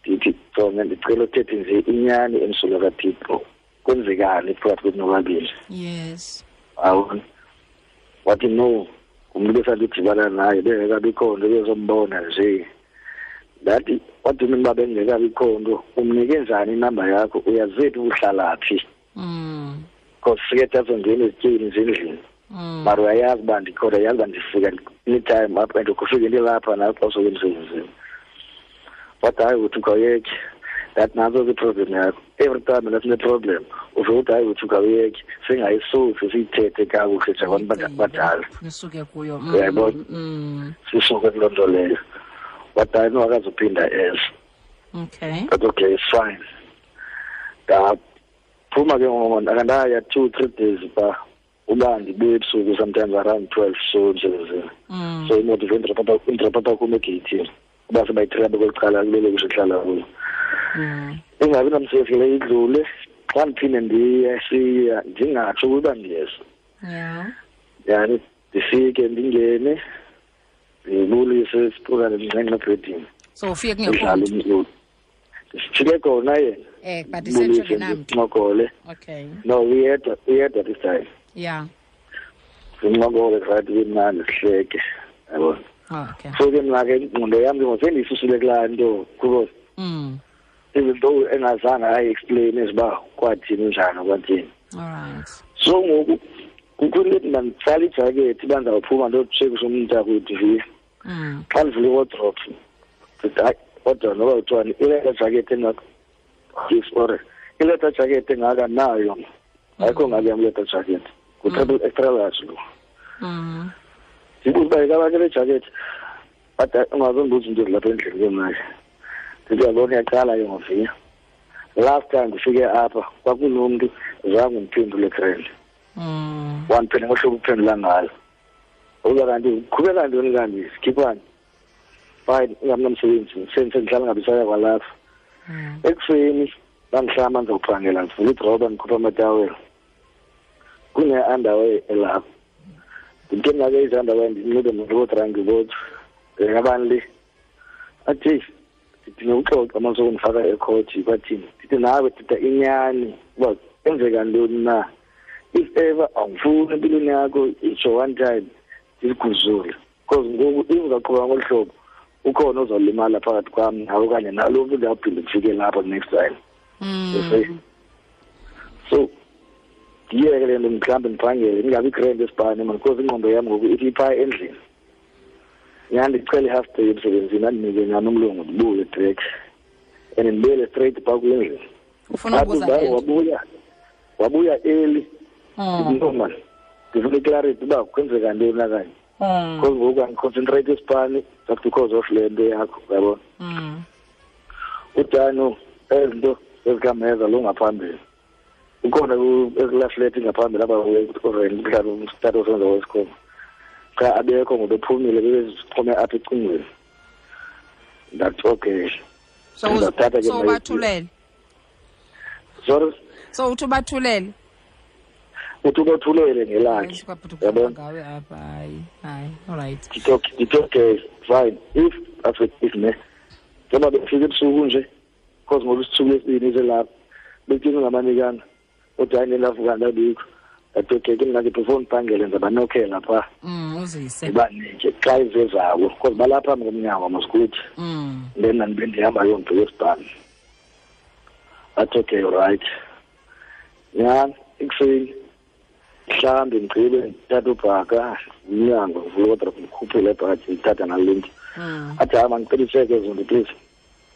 ndithi, jonge, ndicela uthethe nje inyani emsulwa kaThixo, kwenzekani phakathi kwethu nobabini? Yes. Awubona, wathi no, ngumntu besandidibana naye bengekabikho nto, bezombona nje. Ndathi, wathi mna uba bengekabikho nto, umnike njani inamba yakho? Uyazethu uhlala phi? Because sike sazongena ezityeni nje endlini. Mara uyayazi uba ndikhona, uyayazi uba ndifika anytime apha, and kufike ndilapha nawe xa usuke emsebenzini. Wathi hayi, uthi khawuyeke. Ndathi nantso ke iproblem yakho. Every time mna sineproblem uve uthi hayi, uthi khawuyeke, singayisusi siyithethe kakuhle njengabantu abadala. Nisuke kuyo. Uyayibona? Sisuke kuloo nto leyo. Wathi hayi, no, akazuphinda eza. Okay. But okay, it's fine. Ndaphuma ke ngoku, ndaya 2-3 days phaa, uba ndibuye ebusuku sometimes around 12 so emsebenzini. So imoto ive indropha kum egeyithini, uba sebayithela kweli cala kulele kusho ihlala kuyo. Ingabi namsebenzi le idlule, xa ndiphinde ndiye siya ndingatsho ukuba ndiyeza. Yani ndifike ndingene ndibulise siphukane ndinxenxe ebhedini. So ufike kungekho Ndidlale mntu? umculo. Sifike khona yena. But isetsho Ndibulise, ngenamntu. ndincokole. Okay. No, uyedwa this time. Sincokole right kumnandi sihleke. Yabona. Okay. So ke mna ke ingqondo yam ke ngoku sendiyisusile kulaa nto, kuba even though engazange ayi-explain uba kwathini njani kwathini. All right. So ngoku kukho into ethi manditsale ijakethi uba ndizawuphuma ndiyotshekisha umntakwethu vi. Xa ndivula iwardrobe, ndithi hayi, kodwa noba kuthiwani, ileta jakethi engaka, yes, or ileta jakethi engaka nayo. Ayikho ngaki yam ileta jakethi. Ngu-triple extra large lo. Ndibuze uba yikabani le jakethi, but ungazondibuza into ezilapha endlini ke mna ke. Ndithi uyabona, iyaqala ke ngoviya. Last time ndifike apha kwakunomntu zange undiphendule grand. Wandiphendula ngohlobo uphendula ngalo. Uza kanti uqhubeka ntoni kanti sikhiphani? Fine, ingamnamsebenzi, sendihlala ngabe saya kwalapha. Ekuseni bandihlamba ndizophangela, ndivula idroba ndikhupha amatawela. Kune-underwear elapha. Ndithe mna ke izi-underwear ndinxibe ndibodranki bodwa. Ngabani le? Athi ndidinga uxoxa uma sokundifaka ekhothi kwathini. Ndithi nawe thetha inyani uba kwenzeka ntoni na. If ever awufuni empilweni yakho itsho one time ndiziguzule. Because ngoku if uzaqhubeka ngolu hlobo ukhona ozolimala phakathi kwam nawe okanye nalo mntu ndiyawuphinda ndifike lapho next time. You see? So ndiyeke le nto mhlawumbi ndiphangele ndingabi grand esibhane man, because ingqondo yam ngoku ithi iphaa endlini. Nyhani ndicela i-half day emsebenzini andinike nyhani umlungu ndibuye direct. And ndibuyele straight phaa kwindlu. Ufuna Athi ukubuza uba le nto? wabuya early. Ndithi, no man, ndifuna iclarity uba kwenzeka ntoni na kanye. Because ngoku andiconcentrate esipani just because of le nto yakho, uyabona. Udano, ezi nto ezikameza lo ngaphambili. Ukhona ekulaa flat ngaphambili apha mhlawumbi umtata osenza wesikolo. Cha, abekho ngoba ephumile, bebezixhome apha ecingweni. Ndathi okay. So Ndathatha ke mna ubathulele? Sorry? So uthi ubathulele? Uthi ubathulele ngelakhe. Hayi, sikwabhuti Uyabona? ngawe apha, hayi, hayi, all right. Ndithi okay, ndithi okay, fine. If, that's if ne. Njengoba befika ebusuku nje, because ngoba isithuku lesibini selapha, bekuthini ngamanikana, kodwa hayi nelavuka ndabikho. Ndathi okay, ke mna ke before ndiphangele ndizabanokhela phaa. Uzise. Ndibanike xa izezabo, because balapha phambi komnyango mosikuthi. Then mna ndibe ndihamba yondibheka esibhani. Athi okay, right. Nyhani, ekuseni, mhlawumbi ndigqibe ndithathe ubhaka, umnyango, ndivule iwardrobe, ndikhuphele ibhaji, ndithatha nale nto. Athi hayi, mandicela itsheke ezo nto, please.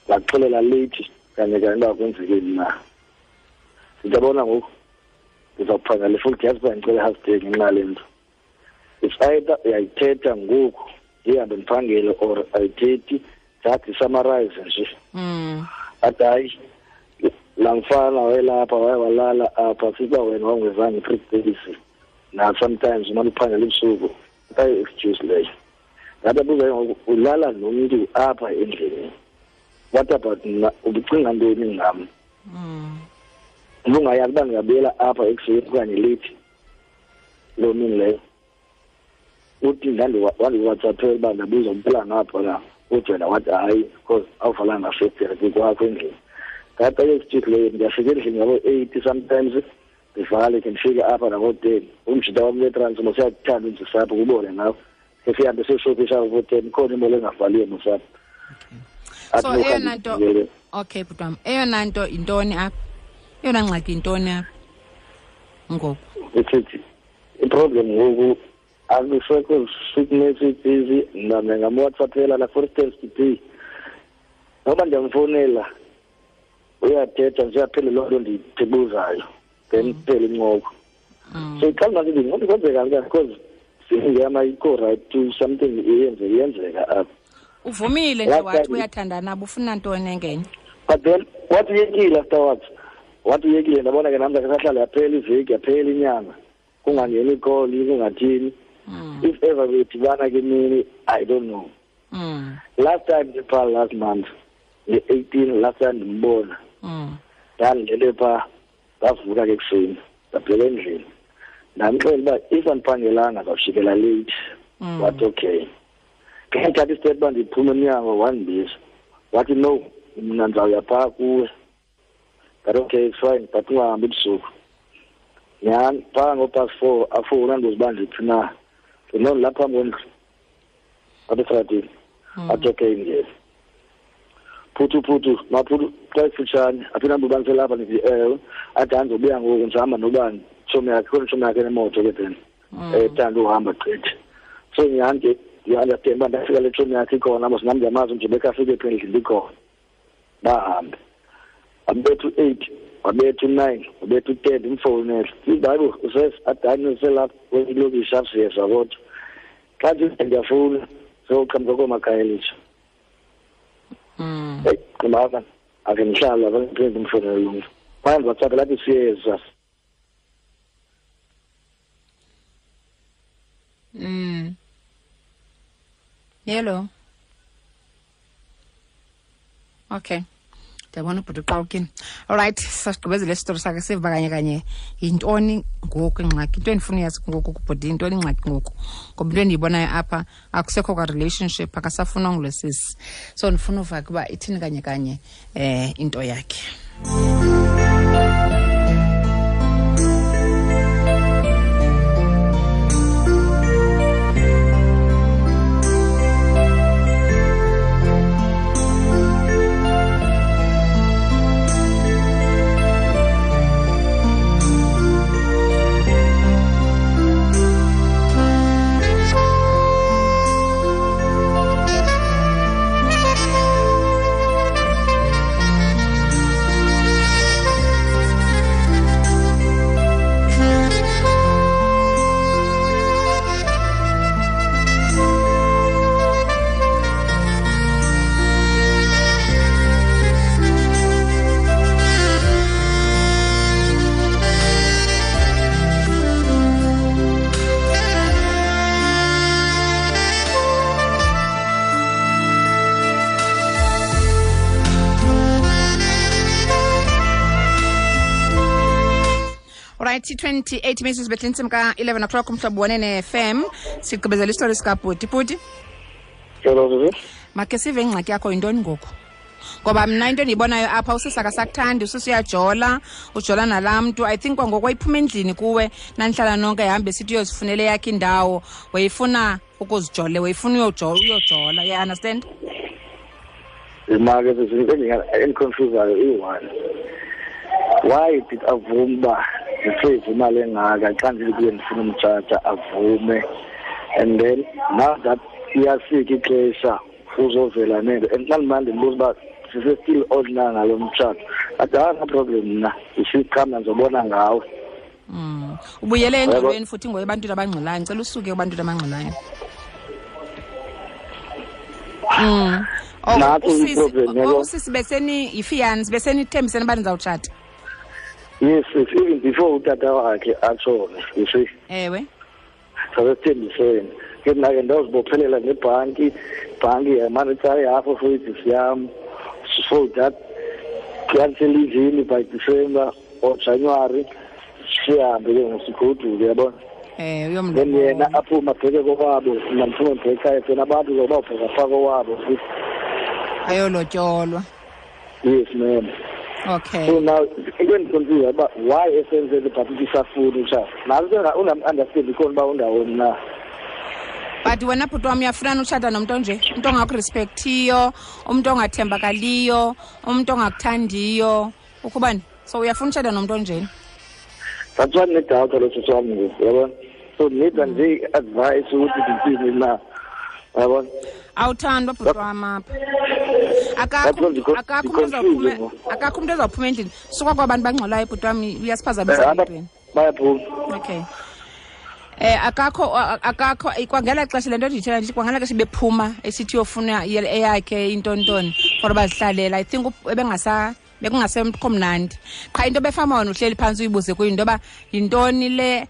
Ndakuxelela leyithi kanye kanye uba kwenzekeni na. Ndithi yabona ngoku, ndizawuphangela futhi, yazi uba ndicela i-half day ngenxa yale nto. It's either uyayithetha ngoku ndihambe ndiphangele or ayithethi, just ndisummarize nje. Athi hayi, laa mfana wayelapha, waye walala apha, siba wena wawungezange 3 days. Na sometimes umane uphangela ebusuku, Ayi-excuse leyo. Ndababuza ngoku, ulala nomntu apha endlini, what about mna? Ubucinga ntoni ngam? Ubungayazi uba ndingabuyela apha ekuseni okanye leyithi loo mini leyo? Uthi wandiwhatsappela uba ndabuza uphela ngapha na, uthi wena wathi hayi, because awuvalanga festire kwakho endlini. Ndathi ayi-excuse leyo. Ndiyafika endlini ngabo-8 sometimes, ndivale ke, ndifike apha nabo-10. Umjita wam wetrans mosiyakuthanda undisapho kubone nawe, ke sihambe siyoshopisha ngabo-10, khona imolo engavaliyo mosapho. So eyona nto, okay bhuti wam, eyona nto yintoni apha? Eyona ngxaki yintoni apha ngoku? Isithi iproblem ngoku akusekho sweet messages. Mna ndingamwhatsappela la, for instance today, noba ndiyamfowunela uyathetha nje, aphele loo nto ndiyibuzayo, then kuphele incoko. So iqala masithi ngoba kwenzeka kanjani, because singeyam ayikho right to something iyenze iyenzeka apha. Uvumile nje wathi uyathandana, ufuna ntoni engenye? But then wathi uyekile afterwards, wathi uyekile. Ndabona ke nam sahlala, yaphela iveki, yaphela inyanga, kungangeni ikholi, kungathini. If ever bedibana ke mini, I don't know. Last time ndipha last month nge-18, last time ndimbona, ndandilele phaa, ndavuka ke ekuseni, ndabuyela endlini, ndamxelela uba if andiphangelanga ndizawujikela late. Wathi okay. Ke ndithatha istep uba ndiphume emnyango, wandibiza wathi no, mna ndizawuya phaa kuwe. Ndathi okay, it's fine, but ungahambi ebusuku. Nyhani phaa ngo-past 4 afowuna, andibuza uba ndiphi na. No, ndilapha phambi kwendlu apha estratini. Athi okay, ngena. Phuthu phuthu maphuthu, xa ifutshane aphinde ambe uba ndiselapha. Ndithi ewe. Athi andizobuya ngoku, ndisahamba nobani, tshomi yakhe, khona itshomi yakhe enemoto ke then ethanda uhamba gqithi. So nyhani ke ndiyi-understand uba ndafika le tshomi yakhe ikhona mos, nam ndiyamazi nje bekafike phi endlini ikhona. Bahambe, wabetha u-8, wabetha u-9, wabetha u-10, ndimfowunele, ndithi hayi bo, athi hayi ndiselapha kwelokishi apha, siyeza. Kodwa xa ndithi ndiyafowuna sewuqhamuka koomakhayelitsha. Eyi, qimaka ake ndihlala apha, ndiphinde ndimfowunele lo mntu. Kwaye ndiwhatsapp lathi siyeza. Hello. Okay. Ndiyabona ubhuti uqawukini. Alright, sasigqibezele isitori sakhe, siva kanye kanye yintoni ngoku ingxaki. Into endifuna uyazi ngoku kubhuti, yintoni ingxaki ngoku? Ngoba into endiyibonayo apha, akusekho kwa-relationship, akasafunwa ngulo sisi. So ndifuna uva ke uba ithini kanye kanye into yakhe. Right, 28 minutes bethe intsimbi ka-11 o'clock, umhlobo wenene FM. Sigqibezela isitori sikabhuti. Bhuti, Hello, sisi. Makhe sive ingxaki yakho yintoni ngoku, ngoba mna into endiyibonayo apha, usisi akasakuthandi, usisi uyajola, ujola nalaa mntu. I think kwangoku wayiphuma endlini kuwe, nanihlala nonke, hambe sithi uyozifunela eyakhe indawo, wayefuna ukuzijole, wayefuna uyojola, you understand? Imake sisi, into endiconfusayo iyi-one, why did avume uba ndisave imali engaka xa ndithi kuye ndifuna umtshata, avume, and then now that iyafika ixesha uzovela nento, and xa ndimane ndimbuza uba sise-still on na ngalo mtshato, athi hayi, no problem, mna isiqhama ndizobona ngawe. Ubuyele engxolweni futhi ngoku ebantwini abangxolayo. Ndicela usuke ebantwini abangxolayo. Oh, Natso usisi, i-problem, oh, yabo. Usisi beseni yifiance, besenithembisene uba nizawutshata. Yes, even before utata wakhe atshone, you see. Ewe. Sasesithembisene. Ke mna ke ndawuzibophelela nebhanki, ibhanki yamane itsala ihafu of wages yam, so that kuyanselivini by December or January sihambe ke ngosigoduke, yabona. Uyomlobola. Then yena aphume abheke kokwabo, mna ndiphume ndibheke ekhaya, then abantu zobawubheka phaa kowabo futhi. Ayolotyolwa. Yes, ma'am. Okay. So now into endiconfuse uba why esenzele but isafuni utshata. Nazo ke unam-understand ikhona uba undawoni na. But wena bhuti wam uyafuna utshata nomntu onje, umntu ongakurespectiyo, umntu ongathembakaliyo, umntu ongakuthandiyo, ukubani? So uyafuna utshata nomntu onjeni? That's why ndinedoubt lo sisi wam ngoku, uyabona? So ndinida nje i-advice ukuthi ndithini na, uyabona? Awuthandwa bhuti wam apha. Akakho umntu ozawuphuma endlini. Suka kwabantu bangxolayo bhuti wam, uyasiphazamisa entweni. Bayaphuma. Okay. Akakho kwangela xesha le nto ndiyithetha nje, kwangela xesha bephuma esithi uyofuna eyakhe intontoni for bazihlalela. I think bekungasekho mnandi. Qha into befama wena uhleli phantsi uyibuze kuyo into yoba yintoni le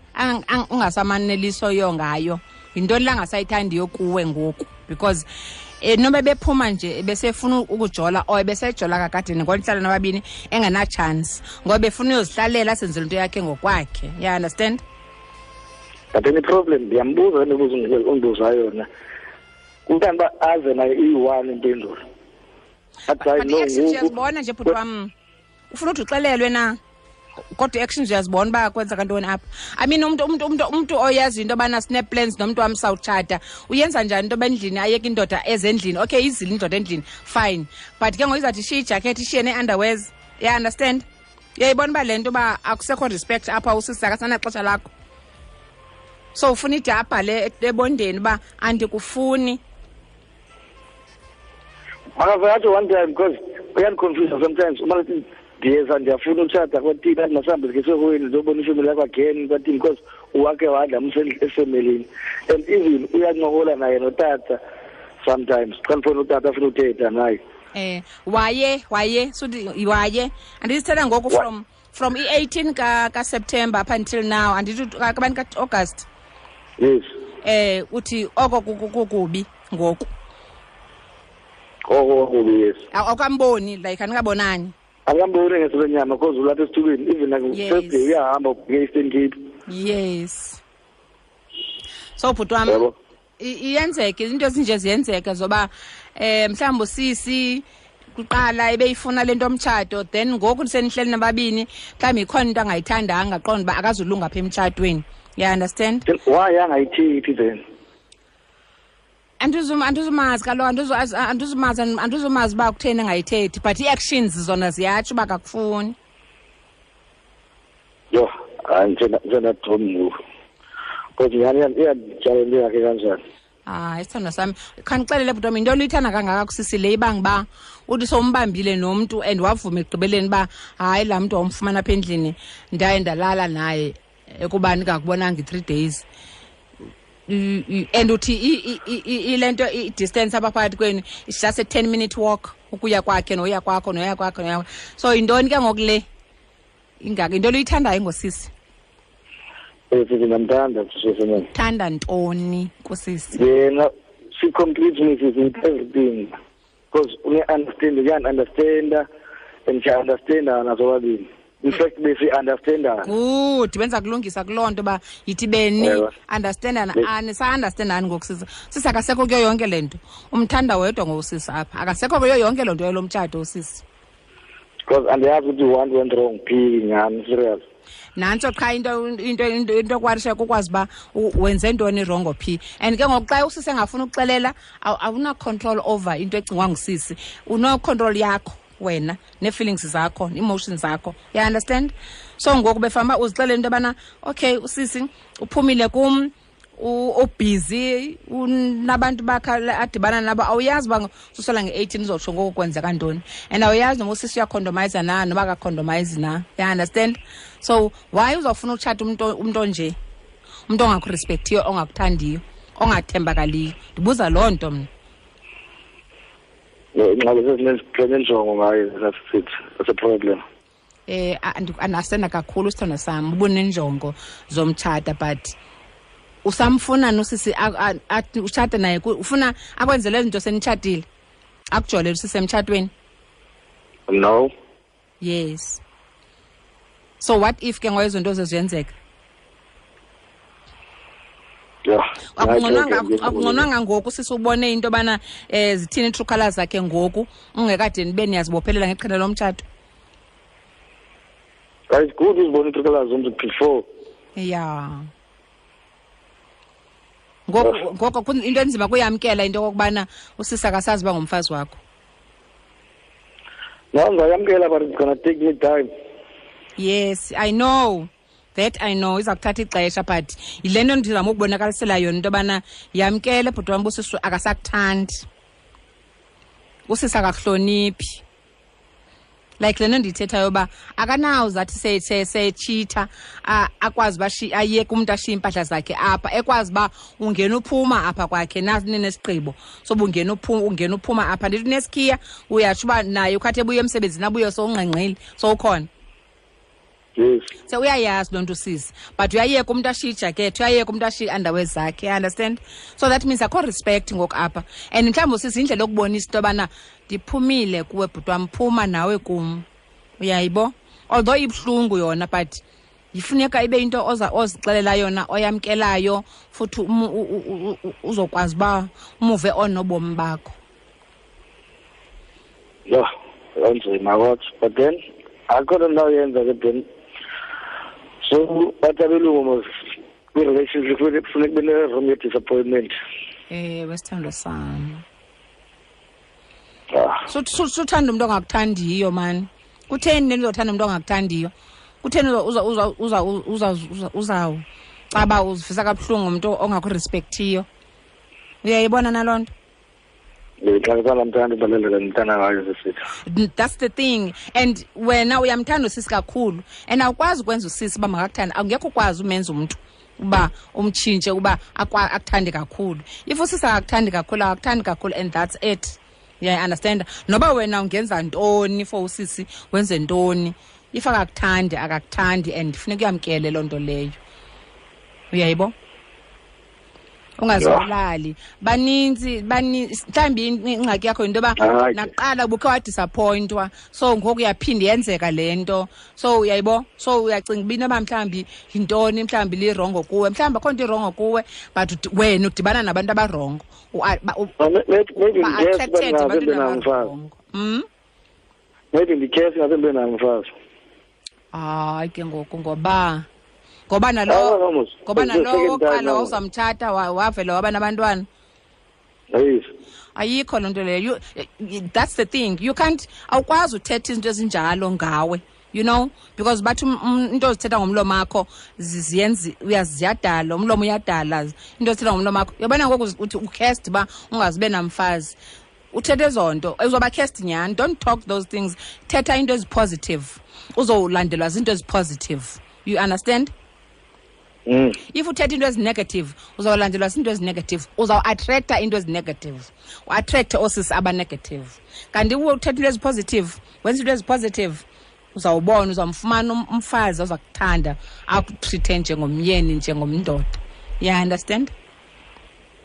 ungasamanelisoyo ngayo, yintoni le angasayithandiyo kuwe ngoku, because noba bephuma nje besefuna ukujola or besejola kakade ngonihlala nababini engena-chance ngoba befuna uyozihlalela asenzele into yakhe ngokwakhe. You understand? But then i-problem ndiyambuza imibuzo undibuza yona, kukanti uba aze nayo iyi-one impendulo. But i-actions uyazibona nje bhuti wam, ufuna uthi uxelelwe na, kodwa i-actions uyazibona uba kwenzeka ntoni apha. I mean umntu oyazi into yobana sine-plans nomntu wam sawutshata, uyenza njani into yoba endlini ayeke indoda ezendlini? Okay, izile indoda endlini, fine, but ke ngoku izawuthi ishiye ijakethi, ishiye nee-underwears. You understand? Uyayibona uba le nto uba akusekho respect apha, usisi akasanaxesha lakho. So ufuna ide abhale ebondeni uba andikufuni. Makaze one time, because uyandiconfuse sometimes. Uma ndiyeza ndiyafuna utshata kwatini, athi masihambe sikhe ndiyobona ifemeli yakho again kwatini, because uwakhe wadla efemelini. And even uyancokola naye notata sometimes. Xa ndifuna utata afuna uthetha naye. Waye suthi waye andisithetha ngoku from i-18 ka-September up until now, andithi kabani ka-August. Yes. Uthi oko kukubi ngoku. Oko kukubi, yes. Awukamboni, like andikabonani. Akamboni ngesenyama because ulapha esithubeni, even like first day uyahamba ubheke Eastern Cape. Yes. So bhuti wam, iyenzeke into ezinje ziyenzeka zoba mhlawumbi usisi kuqala ebeyifuna le nto omtshato, then ngoku senihleli nababini mhlawumbi ikhona into angayithandanga, aqonda uba akazulunga apha emtshatweni. You understand? Why angayithethi then? Andizumazi kaloku, andizumazi uba kutheni engayithethi, but ii-actions zona ziyatsho uba akakufuni. Yho, hayi njengadom ngoku. Because nyhani iyandityala into yakhe kanjani. Hayi, isithandwa sami, khandixelele bhuti wam, yinto oluyithanda kangaka kusisi le ibanga uba uthi sowumbambile nomntu and wavuma ekugqibeleni uba hayi laa mntu wamfumana apha endlini ndaye ndalala naye ekubani ndingakubonanga i-3 days. And uthi ile nto i-distance apha phakathi kwenu it's just a 10-minute walk ukuya kwakhe noya kwakho noya kwakho noya. So yintoni ke ngoku le ingaka, yinto oluyithandayo ngosisi? Sisi ndiyamthanda sisi. Thanda ntoni kusisi? Yena she completes me sisi with everything, because uya-understand, uyan-understanda and siya-understandana sobabini. In fact besi-understandana. Good, benza kulungisa kuloo nto uba yithi beni understandana, anisa-understandani ngoku sisi. Sisi akasekho kuyo yonke le nto, umthanda wedwa ngosisi apha, akasekho kuyo yonke loo nto yalo mtshato usisi. Because andiyazi ukuthi one went wrong phi nyhani, serious. Nantso qha into okwarisha kukwazi uba wenze ntoni wrongo phi. And ke ngoku xa usisi engafuni ukuxelela, awuna control over into ecingwa ngusisi, uno-control yakho wena nee-feelings zakho, emotions zakho. You understand? So ngoku befamba uzixelele into yobana okay usisi uphumile kum, ubhizi, unabantu bakhe adibana nabo, awuyazi uba susela nge-18 uzotsho ngoku kwenzeka ntoni, and awuyazi noba usisi uyakhondomayiza na noba akakhondomayizi na. You understand? So why uzawufuna utshata umntu onje, umntu ongakurespektiyo, ongakuthandiyo, ongathembakaliyo? Ndibuza loo nto mna. Ingxaki sesinenjongo ngayo, that's it, that's a problem. Andasena kakhulu sithandwa sam, ubunenjongo zomtshata, but Usamfuna nosisi utshate naye, ufuna akwenzele izinto senitshatile, akujolele usisi emtshatweni? No. Yes. So what if ke ngoba izinto zeziyenzeka? Yeah. Akungconwanga ngoku sisi ubone into yobana zithini ii-true colours zakhe ngoku, ungekade nibe niyazibophelela ngeqhina lomtshato. It's good uzibona ii-true colours zomntu before. Yeah. Ngoko into enzima kuyamkela into okokubana usisi akasazi uba ngumfazi wakho. No, ndizayamkela, but it's gonna take me time. Yes, I know. That I know, iza kuthatha ixesha, but yile nto ndizama ukubonakalisela yona into yobana yamkele bhuti wam, usisi akasakuthandi, usisi akakuhloniphi. Like le nto ndiyithethayo uba akanawuze athi seyetshitha akwazi uba ayeke umntu ashiye iimpahla zakhe apha, ekwazi uba ungena uphuma apha kwakhe nesigqibo soba ungena uphuma apha. Ndithi unesikhiya, uyatsho uba naye ukhathi ebuye emsebenzini abuye sowungqengqile sowukhona. Yes. So uyayazi loo nto usisi, but uyayeka umntu ashiye ijakethi, uyayeka umntu ashiye i-underwear zakhe, you understand? So that means akho respect ngoku apha. And mhlawumbi usisi indlela yokubonisa into yobana ndiphumile kuwe bhuti wam, phuma nawe kum. Uyayibo? Although ibuhlungu yona, but ifuneka ibe into ozixelela yona, oyamkelayo, futhi uzokwazi uba umuve on nobomi bakho. Yeah, anzima kodwa, but then akho nto ndawuyenza ke then. So bathi abelungu mos kwi-relationship kufuneka kube ne-room ye-disappointment. Ewe, sithandwa sami. Suthanda umntu ongakuthandiyo mani. Kutheni le nto uzothanda umntu ongakuthandiyo? Kutheni uzawucaba uzivisa kabuhlungu umntu ongakurespekthiyo? Uyayibona naloo nto? That's the thing. And wena uyamthanda usisi kakhulu, and awukwazi ukwenza usisi uba makakuthande. Awungekho ukwazi umenza umntu uba umtshintshe uba akuthande kakhulu. If usisi akakuthandi kakhulu, akakuthandi kakhulu, and that's it. Yeah, understand? Noba wena ungenza ntoni for usisi, wenze ntoni. If akakuthandi, akakuthandi, and funeka uyamkele loo nto leyo. Uyayibo? Ungazibulali. Baninzi mhlawumbi ingxaki yakho yinto yoba naqala ubukhe wadisappointwa, so ngoku uyaphinda yenzeka le nto. So uyayibo? So uyacinga uba inoba mhlawumbi yintoni, mhlawumbi lirongo kuwe, mhlawumbi akho nto irongo kuwe, but wena udibana nabantu abarongo. Ba-attracted ebantwini abarongo. Maybe ndikhesi ngaze ndibe nayo umfazi. Hayi ke ngoku, ngoba nalo oqala wawuzamtshata wavela waba nabantwana. Yes. Ayikho loo nto leyo. That's the thing. You can't, awukwazi uthetha izinto ezinjalo ngawe, you know, because bathi into ozithetha ngomlomo wakho ziyenzi uyaziyadala, umlomo uyadala. Into ozithetha ngomlomo wakho. Uyabona ngoku uthi ucast uba ungazibe namfazi. Uthethe ezo nto, uzoba cast nyhani. Don't talk those things. Thetha into ezipositive. Uzolandelwa zinto ezipositive. You understand? If uthetha into ezinegative, uzawulandelwa zinto ezinegative, uzawuattracta into ezinegative, uattracte oosisi abanegative. Kanti uthetha into ezipositive, wenza into ezipositive, uzawubona, uzawumfumana umfazi oza kuthanda, akutreate njengomyeni, njengomndoda. You understand?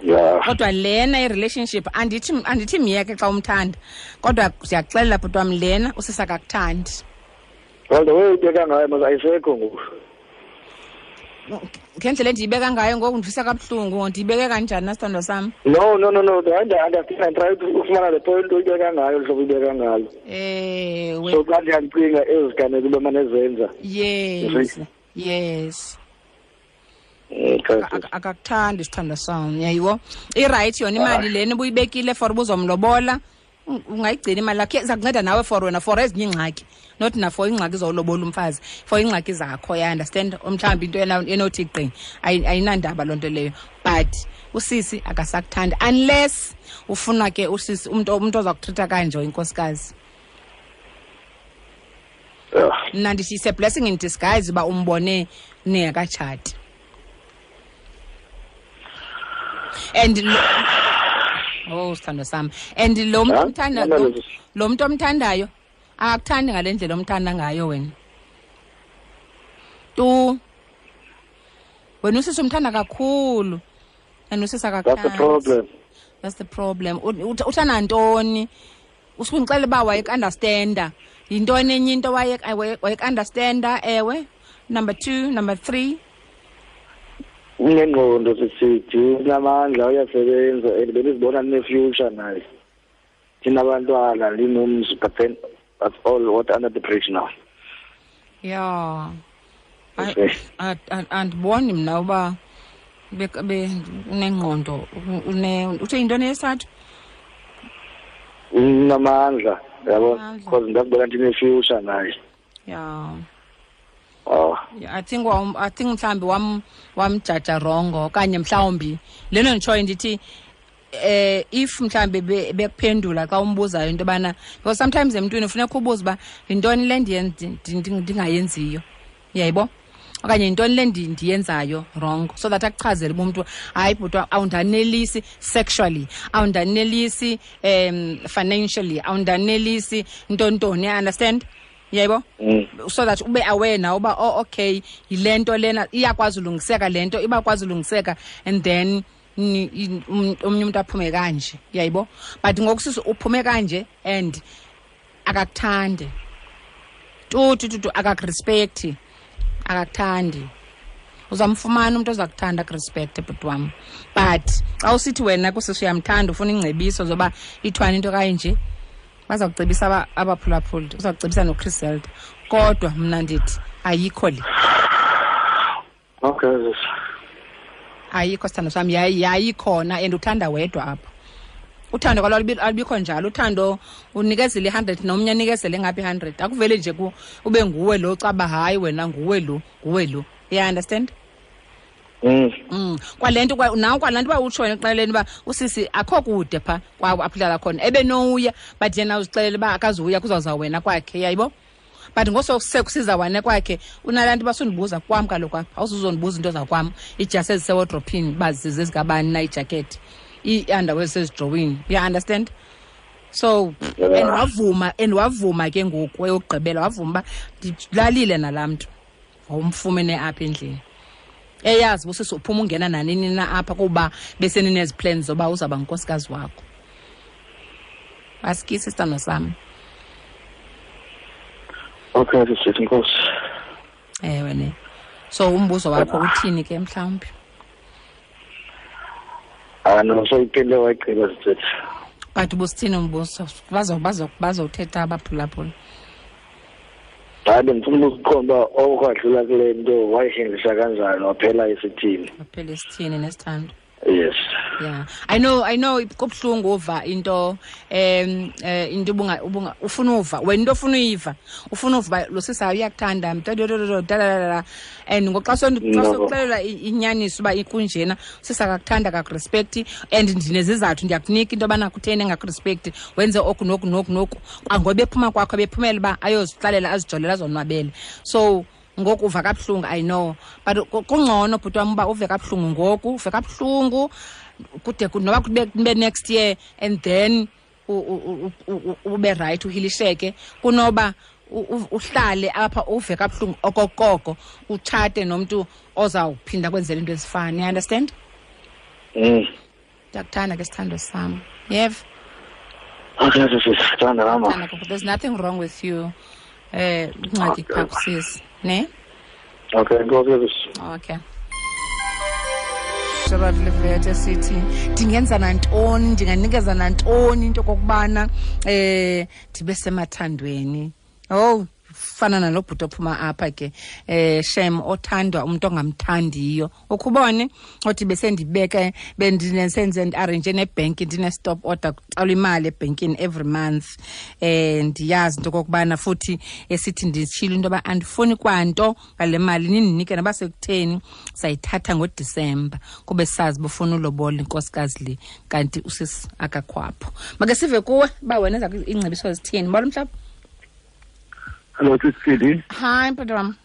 Yeah. Kodwa lena i-relationship, andithi myeke xa umthanda, kodwa siyakuxelela bhuti wam, lena usisi akakuthandi. Well, the way uyibeka ngayo mos ayisekho ngoku. Ngendlela endiyibeka ngayo ngoku ndivisa kabuhlungu, ndiyibeke kanjani na sithandwa sam? No. I understand. I try to ufumana le point uyibeka ngayo, hlobo uyibeka ngalo. Ewe. So xa ndiyacinga eziganeko ube manezenza. Yes. Yes. Akakuthandi sithandwa sam, yayiwo. I-right yona imali lena ubuyibekile for ubuzomlobola. Ungayigcina imali yakho, iza kunceda nawe for wena for ezinye iingxaki, not na for iingxaki zowulobola umfazi, for iingxaki zakho, ya understand? Mhlawumbi into enothi gqi ayinandaba loo nto leyo, but usisi akasakuthandi unless ufuna ke usisi umntu oza kutreata kanje inkosikazi. Mna ndithi it's a blessing in disguise uba umbone ningekatshati. And oh, sithandwa sam. And lo mntu omthandayo akakuthandi ngale ndlela omthanda ngayo wena. Tu. Wena usisi umthanda kakhulu and usisi akakuthandi. That's the problem. That's the problem. Uthanda ntoni? Usukundixelela uba wayeku-understanda. Yintoni enye into wayeku-understanda? Ewe. Number 2, number 3. Unengqondo sisithi, unamandla, uyasebenza and bendizibona ndine-future naye. Ndinabantwana, ndinomzi, but then that's all what under the bridge now. Yeah. Andiboni mna uba unengqondo, uthe yintoni yesithathu? Unamandla, yabo, because ndakubona ndine-future naye. Yeah. Oh. Yeah, I think mhlawumbi wamjaja wrongo okanye mhlawumbi leno nditshoyo ndithi if mhlawumbi bekuphendula xa umbuzayo into yobana, because sometimes emntwini ufuneka ubuze uba yintoni le ndingayenziyo, uyayibo, okanye yintoni le ndiyenzayo wrong, so that akuchazele uba umntu hayi bhuti awundanelisi sexually, awundanelisi financially, awundanelisi ntontoni, you understand? Yebo, so that ube aware now uba oh okay yile nto lena iyakwazi ulungiseka, le nto ibakwazi ulungiseka, and then omnye umuntu aphume kanje, uyayibo. But ngoku sisi uphume kanje and akakuthandi tu akakurespecti, akakuthandi. Uzamfumana umuntu ozakuthanda akurespecte bhuti wam. But xa usithi wena kusisi uyamthanda ufuna ingcebiso zoba ithwani into kanje, baza kucebisa abaphulaphuli, uza kucebisa noChris Zelda, kodwa mna ndithi ayikho le. Okay. Ayikho sithando sami, yayikhona and uthanda wedwa apha. Uthando kwalo alubikho njalo, uthando unikezele 100 nomnye anikezele ngaphi 100. Akuvele nje ube nguwe lo caba hayi wena nguwe lo, nguwe lo. You understand? Kwalento nawe kwalanto uba utsho wena ekuqaleni uba usisi akho kude pha kwawo apho khona ebenowuya, but yena uzixelele uba akazuya kuzawuza wena kwakhe, yayibo. But ngosekusiza wena kwakhe unalanto uba sundibuza kwam kaloku apha, awuzuzondibuza into zakwam, iijasi ezisewodrophini uba zezikabani na, iijakethi, ii-underwear zisezidrowini, you understand? So and wavuma ke ngoku eyokugqibela, wavuma uba ndilalile nalaa mntu wawumfumene apha endlini. Eyazi busisi uphuma ungena nanini na apha kuba beseninezi plans zoba uzawuba ngunkosikazi wakho. Asikisi sithando sami. Okay, sisithi inkosi. Ewe ne. So umbuzo wakho uthini ke mhlawumbi? No, so iphinde wayigqiba sisithi. But ubusithini umbuzo? Bazothetha abaphulaphula. Hayi, bendifuna ukuqonda uba okwadlula kule nto wayihendlisha kanjani, waphela isithini. Waphela isithini nesithando. Yes. Yeah. I know kubuhlungu uva into into ubunga ufuna uva wena into ofuna uyiva, ufuna uva lo sisi uyakuthanda mntadododododadada, and ngoxa sokuxelela inyaniso uba ikunjena, sisi akakuthanda akakurespecti, and ndinezizathu ndiyakunika into yobana kutheni engakurespecti, wenze oku noku noku noku, ngoba ephuma kwakho bephumela uba ayozihlalela azijolela azonwabele. So ngoku uva kabuhlungu, I know, but kungcono bhuti wam uba uve kabuhlungu ngoku, uve kabuhlungu kude noba kube next year and then ube right uhilisheke, kunoba uhlale apha uve kabuhlungu okokoko utshate nomntu ozawuphinda kwenzela into ezifana, you understand? Ndiyakuthanda ke sithando sam, yeva? Okay, sisithanda mama. There's nothing wrong with you. Ingxaki phaa kusisi, ne? Okay, go. Okay. Gerald Levete sithi ndingenza nantoni, ndinganikeza nantoni into okokubana ndibe semathandweni. Oh, fana nalo bhuti ophuma apha ke, shem othandwa umuntu ongamthandiyo. Ukhubone othi besendibeke bendinesenze ndiarrange nebhenki, ndine-stop order kuqala imali ebhenkini every month. Ndiyazi into okokubana futhi esithi nditshilo into yoba andifuni kwanto ngale mali nindinike noba sekutheni, sayithatha ngoDisemba kube sazi bufuna ulobola inkosikazi le, kanti usisi akakhwapho. Make sive kuwe uba wena ezakho iingcebiso zithini. Molo mhlaba. Hello, Sisidi. Hi, bhuti wam.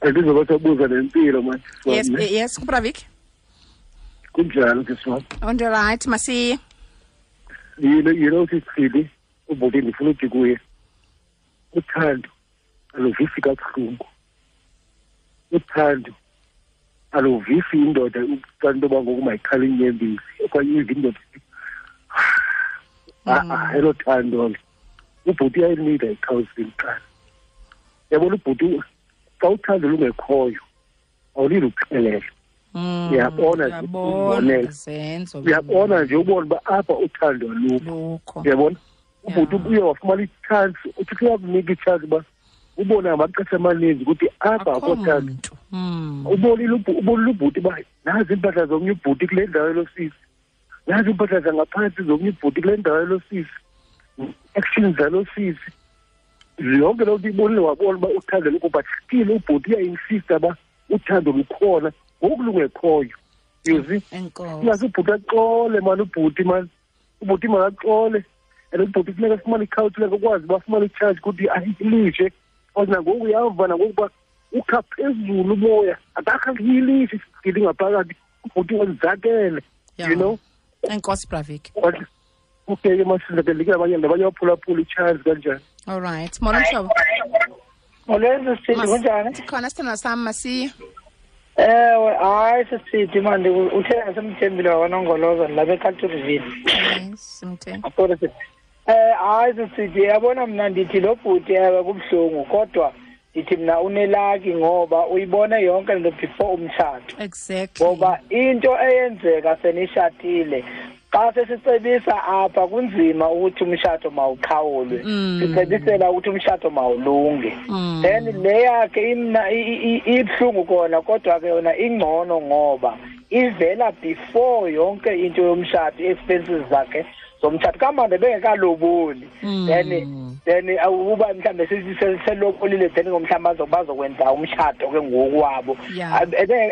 Andizobasabuza nempilo manje. Yes, yes, kuBravik. Kunjani sisi wam? Right, masiye. You know Sisidi, ubhuti ndifuna uthi kuye, uthando aluvisi kabuhlungu. Uthando Aluvisi indoda xa into yoba ngoku mayikhale inyembezi okanye ive indoda elo thando. Ubhuti uyayinida i-counseling kuqala. Yabona ubhuti, xa uthando lungekhoyo awulili uxelela. Uyabona uyabona nje ubona uba apha uthando alukho. Uyabona ubhuti uye wafumana itshansi, uThixo uyakunika itshansi uba ubone ngamaxesha amaninzi ukuthi apha akho thando. Ubonile ubhuti uba nazi iimpahla zomnye ubhuti kule ndawo yelosisi, nazi iimpahla zangaphantsi zomnye ubhuti kule ndawo yelosisi, actions zalosisi, yonke loo nto ibonile, wabona uba uthando lukho. But still ubhuti uyayinsista uba uthando lukhona ngoku lungekhoyo. You see, ingaze ubhuti axole mani, ubhuti mani, ubhuti makaxole. And ubhuti funeka afumane i-counseling akwazi uba afumane itshaji ukuthi ahilishe, because nangoku uyava nangoku uba ukha phezulu umoya, akakhahilishe isigidi ngaphakathi, ubhuti wenzakele, you know. Enkosi Bravik. Okay, masizakele abanye nabanye baphulaphula itshaji kanjani. All right. Molo mhlobo. Molweni sisithi, kunjani? Sikhona sithandwa sami, masiye. Ewe, hayi sisithi manje uthe asemthembile wakwaNongoloza lapha eCaturville. Yes, simthembe. Hayi sisithi, yabona mna ndithi lo bhuti ewe kubuhlungu, kodwa ndithi mna unelaki ngoba uyibone yonke lento before umtshato. Exactly. Ngoba into eyenzeka senishatile, xa sesicebisa apha kunzima ukuthi umshato mawuqhawulwe. Sicebisela ukuthi umshato mawulunge. Then le yakhe imna ibuhlungu kona, kodwa ke yona ingcono ngoba ivela before yonke into yomshato, expenses zakhe zomtshato kamande bengekaloboli. Then uba mhlambe selobolile, then ngomhlamba bazokwenza umshato ke ngokwabo.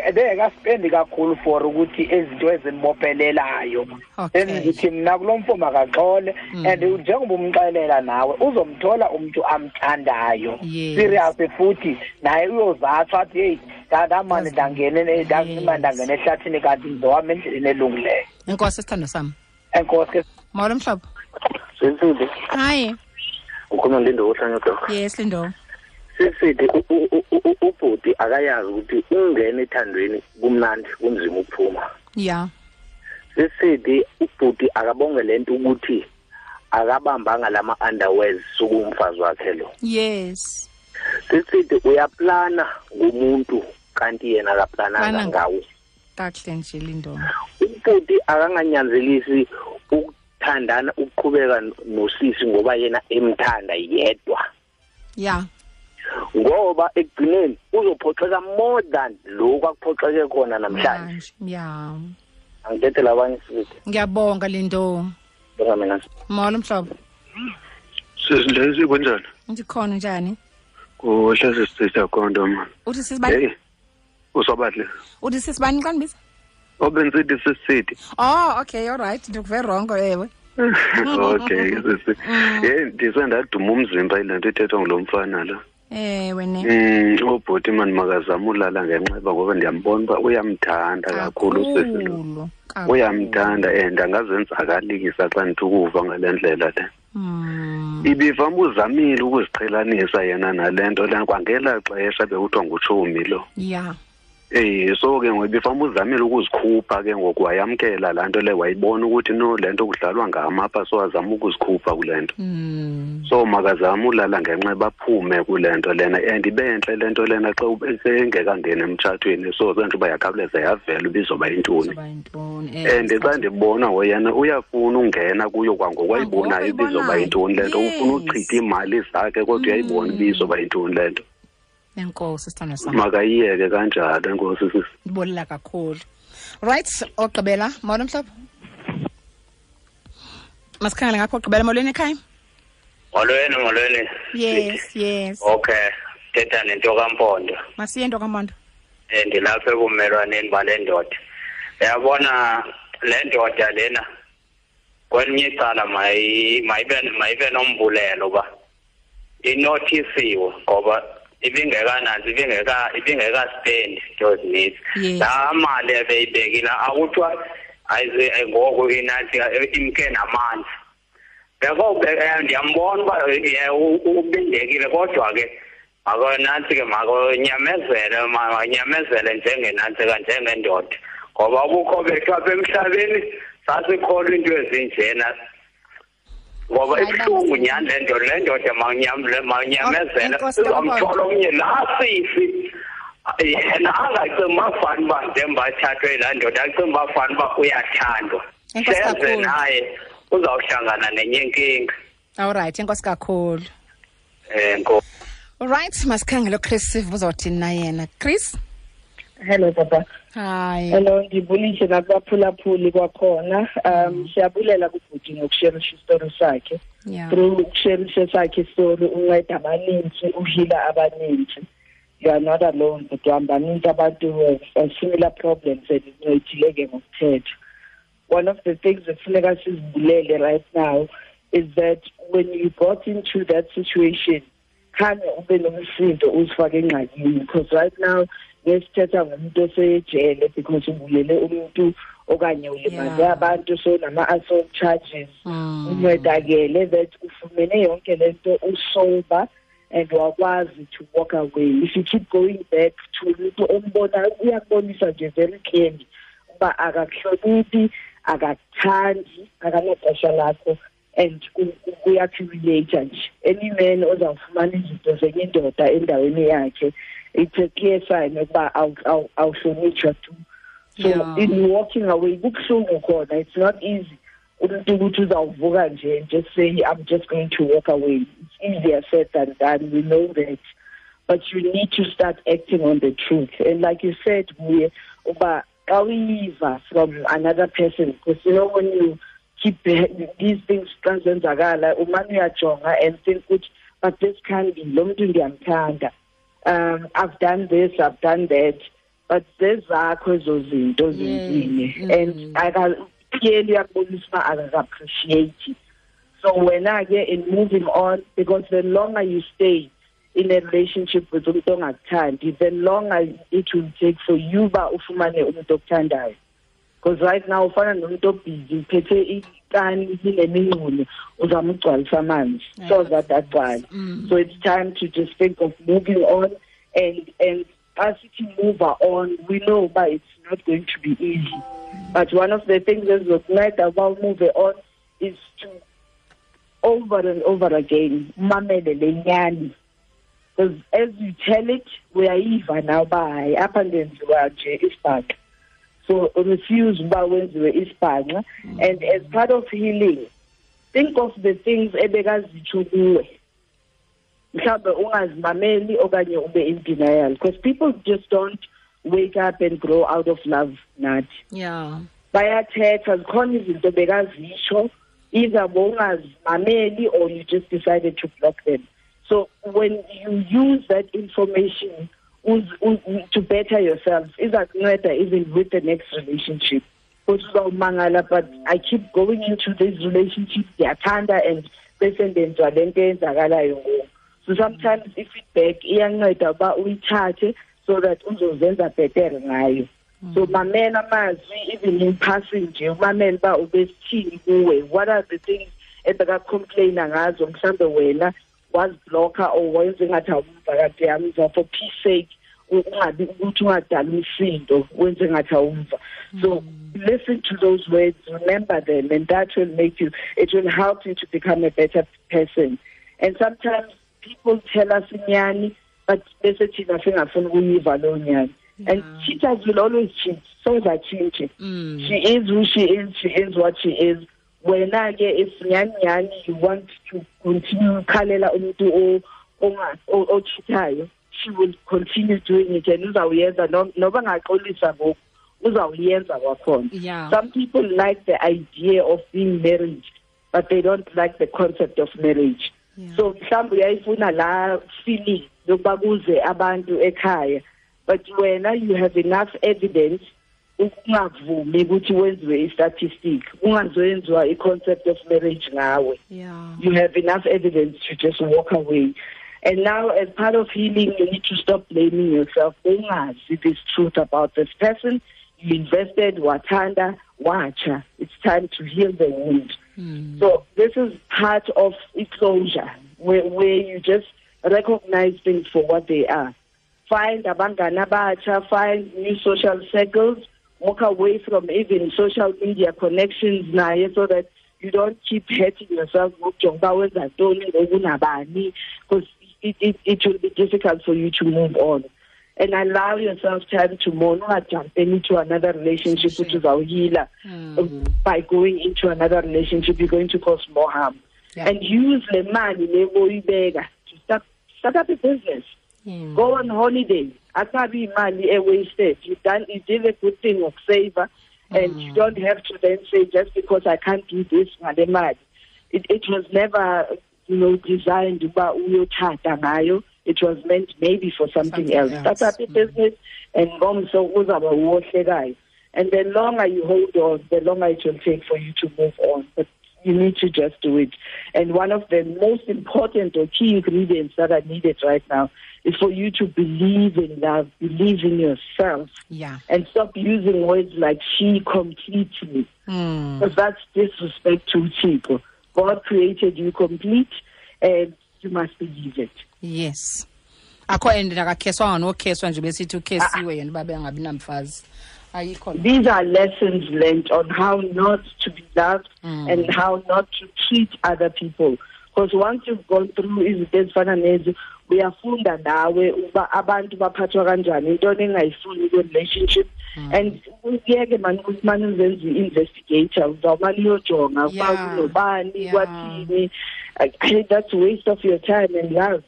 Ebengekaspendi kakhulu for ukuthi izinto ezimbophelelayo. Then ngithi mna kulo mfo makaxole, and njengoba umxelela nawe uzomthola umuntu amthandayo. Serious futhi naye uyozathwa athi hey ndamane ndangene ndangene ehlathini kanti ngizowami endleleni elungileyo. Enkosi sithando sami. Enkosi. Molo mhlobo. Sisithi. Hi. Ukhona Lindo ohlanya doc. Yes Lindo. Sisithi ubhuti akayazi ukuthi ungena ethandweni kumnandi kunzima ukuphuma. Yeah. Sisithi ubhuti akabonge lento ukuthi akabambanga lama underwears sukumfazi wakhe lo. Yes. Sisithi uyaplana ngumuntu kanti yena akaplananga ngawo. Kahle nje Lindo. Ubhuti akanganyanzelisi ukuthandana ukuqhubeka nosisi ngoba yena emthanda yedwa. Yeah. Ngoba ekugcineni uzophoxeka more than lokhu akuphoxeke khona namhlanje. Yeah. Angithethela abanye sithi. Ngiyabonga Lindo. Bonga mina. Molo mhlobo. Sisindlezi kunjani? Ndikhona njani? Kuhle sisithetha konto man. Uthi sisibani? Usobahle. Uthi sisibani xa ndibiza? Obenzithi sisithi. Oh, okay, all right. Ndikuve wrong ewe. Okay, sisi. Ndisendaduma umzimba ile nto ithethwa ngulo mfana lo. Ewe ne. Ubhuti mani makazama ulala ngenxeba ngoba ndiyambona uba uyamthanda kakhulu usisi lo. Uyamthanda and angazenzakalisa xa ndithi ukuva ngale ndlela le. Ibivama uzamile ukuziqhelanisa yena nale nto lena kwangela xesha bekuthiwa ngutshomi lo. Yeah. So ke ngoba ibivama uzamile ukuzikhupha ke ngoku wayamkela laa nto le, wayibona ukuthi no le nto kudlalwa ngamapha, so azama ukuzikhupha kule nto. So makazama ulala ngenxeba aphume kule nto lena, and ibe entle le nto lena xa engekangeni emtshatweni, so sentsho uba yakhawuleza yavela uba izoba yintoni. And xa ndibona ngoyena uyafuna ungena kuyo kwangoku ayibonayo uba izoba yintoni le nto, ufuna uchitha iimali zakhe kodwa uyayibona uba izoba yintoni le nto. Enkosi sithando sami. Makayiyeke kanjalo, enkosi sisi. Ndibolela kakhulu. Right, ogqibela, molo mhlobo. Masikhangele ngapho ogqibela, molweni ekhaya. Molweni, molweni. Yes, yes. Okay, thetha nento kaMpondo. Masiye nto kaMpondo. Ndilapha ebumelwaneni bale ndoda. Uyabona le ndoda lena kwelinye icala mayibe nombulelo ba inothisiwe ngoba ibingekanazi ibingekaspendi into ezininzi. Laa mali ebeyibekile akuthiwa ayize ngoku inathi imke namanzi. Ndiyambona uba ubindekile, kodwa ke Makonantsi ke makonyamezele, makanyamezele njengenantsika, njengendoda, ngoba ubukho bethu apha emhlabeni sasikholwa into ezinjena, ngoba ibuhlungu nyhani le nto. Le ndoda manyamezele, uzamthola omnye laa sisi. Yena angacingi uba fani uba njengoba athathwe yilaa ndoda, acinga uba fani uba uyathandwa. Seze naye uzawuhlangana nenye inkinga. Alright, enkosi kakhulu. Alright, masikhangele uChris sive uzawuthini na yena. Chris? Hello papa. Hi. Hello, ndibulise nakubaphulaphuli kwakhona. Siyabulela kubhuti ngokusherisha isitori sakhe. Through ukusherisha sakhe isitori unceda abaninzi, uhila abaninzi. You are not alone, but baninzi abantu who have similar problems and incedile ke ngokuthetha. One of the things ekufuneka sizibulele right now is that when you got into that situation, khange ube nomsindo uzifake engxakini, because right now ngesithetha ngomuntu osejele because ubulele umuntu okanye ulimaze abantu, so nama-assault charges. Uncedakele that ufumene yonke lento usober and wakwazi to walk away. If you keep going back to umuntu ombona, uyakubonisa nje very clearly uba akakuhloniphi, akakuthandi, akanaxesha lakho, and uyaku-humiliate nje. Any man ozawufumana izinto zenye indoda endaweni yakhe, it's a clear sign ukuba awuhlonitshwa tu. So in walking away, kubuhlungu khona, it's not easy umuntu ukuthi uzawuvuka nje and just say I'm just going to walk away. It's easier said than done, we know that, but you need to start acting on the truth. And like you said, we uba xa uyiva from another person, because you know when you keep these things xa zenzakala, umane uyajonga and think ukuthi but this can be lo mntu ndiyamthanda, I've done this, I've done that, but zezakho ezo zinto zenzile, and clearly uyakubonisa uba akaka-appreciate. So wena ke in moving on, because the longer you stay in a relationship with umuntu ongakuthandi, the longer it will take for you uba ufumane umuntu okuthandayo. Because right now ufana nomuntu obhizi uphethe ikani linemingxulo, uzama ukugcwalisa amanzi, so that agcwale. So it's time to just think of moving on, and as you move on, we know but it's not going to be easy. But one of the things ezizokunceda uba move on is to over and over again umamele le nyani, because as you tell it, uyayiva now uba hayi apha ndenziwa nje isibhaxa. So refuse uba wenziwe isibhanxa. And as part of healing, think of the things ebekazitsho kuwe, mhlawumbe ungazimameli okanye ube in denial, because people just don't wake up and grow out of love nathi. Bayathetha, zikhona izinto bekazisho, either bowungazimameli or you just decided to block them. So when you use that information to better yourself, izakunceda even with the next relationship. But I keep going into this relationship, ndiyathanda, and bese ndenziwa le nto eyenzakalayo ngoku. So sometimes i-feedback iyanceda uba uyithathe so that uzozenza better ngayo. So mamela amazwi even in passing nje, umamele uba ubesithini kuwe, what are the things ebeka-complaina ngazo, mhlawumbe wena wazibhlokha or wenze ngathi awumva kade yamva for peace sake, ungabi ukuthi ungadali umsindo, wenze ngathi awumva. So listen to those words, remember them, and that will make you, it will help you to become a better person. And sometimes people tell us inyani, but bese thina singafuni ukuyiva loo nyani. And cheaters will always cheat, so that cheating. She is who she is what she is. Wena ke if nyani nyani you want to continue khalela umuntu ochithayo, she will continue doing it, and uzawuyenza noba ngaxolisa ngoku, uzawuyenza kwakhona. Some people like the idea of being married, but they don't like the concept of marriage. So mhlawumbe uyayifuna la feeling yokuba kuze abantu ekhaya, but wena you have enough evidence ukungavumi ukuthi wenziwe i-statistic, ungazoyenziwa i-concept of marriage ngawe. You have enough evidence to just walk away. And now as part of healing, you need to stop blaming yourself. Ungazi this truth about this person. You invested, wathanda, wacha. It's time to heal the wound. So this is part of closure, where you just Recognize things for what they are. Find abangani abatsha, find new social circles, walk away from even social media connections naye so that you don't keep hurting yourself ngokujonga uba wenza ntoni ngoku nabani, because it will be difficult for you to move on. And allow yourself time to mourn. Not jump into another relationship, which is our healer. By going into another relationship, you're going to cause more harm. Yeah. And use the money to start up a business. Yeah. Go on holiday. Akabi mali wasted. You did a good thing of saver, and you don't have to then say just because I can't do this, mali. It was never, designed uba uyothatha ngayo. It was meant maybe for something else. Start up a business and ngomso uzaba wohlekayo. And the longer you hold on, the longer it will take for you to move on. But you need to just do it. And one of the most important or key ingredients that are needed right now is for you to believe in love, believe in yourself. Yeah. And stop using words like she completes me. Because that's disrespect to people. God created you complete and you must believe it. Yes. Akho and akakheswa nokheswa nje besithi ukhesiwe yena babe angabi namfazi. Ayikho. These are lessons learned on how not to be loved and how not to treat other people. Because once you've gone through izinto ezifana nezi, uyafunda nawe uba abantu baphathwa kanjani, into engayifuni ku relationship. And uyeke man ukuthi uzenze investigator, uzawumane uyojonga uba kunobani kwathini. That's a waste of your time and love.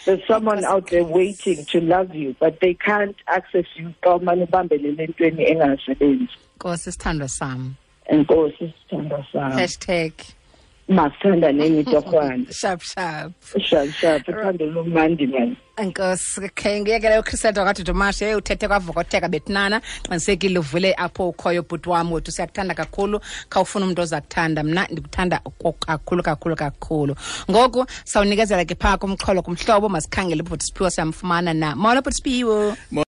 There's someone out there waiting to love you, but they can't access you. Xa umane ubambelele entweni engasebenzi. Nkosi sithandwa sam. Enkosi sithandwa sam. Hashtag masithanda neni torhwana. Sharp sharp. Sharp sharp. Uthando lumandi man. Enkosi ke ngiyekele uChriselda kaDudumashe uthethe kwavokotheka betnana qinisekile uvule apho ukhoyo bhuti wami wethu siyakuthanda kakhulu khawufuna umuntu ozakuthanda mna ndikuthanda kakhulu kakhulu kakhulu. Ngoku sawunikezela ke phaa kumxholo kumhlobo masikhangele ubhuti Siphiwo siyamfumana na. Molo bhuti Siphiwo.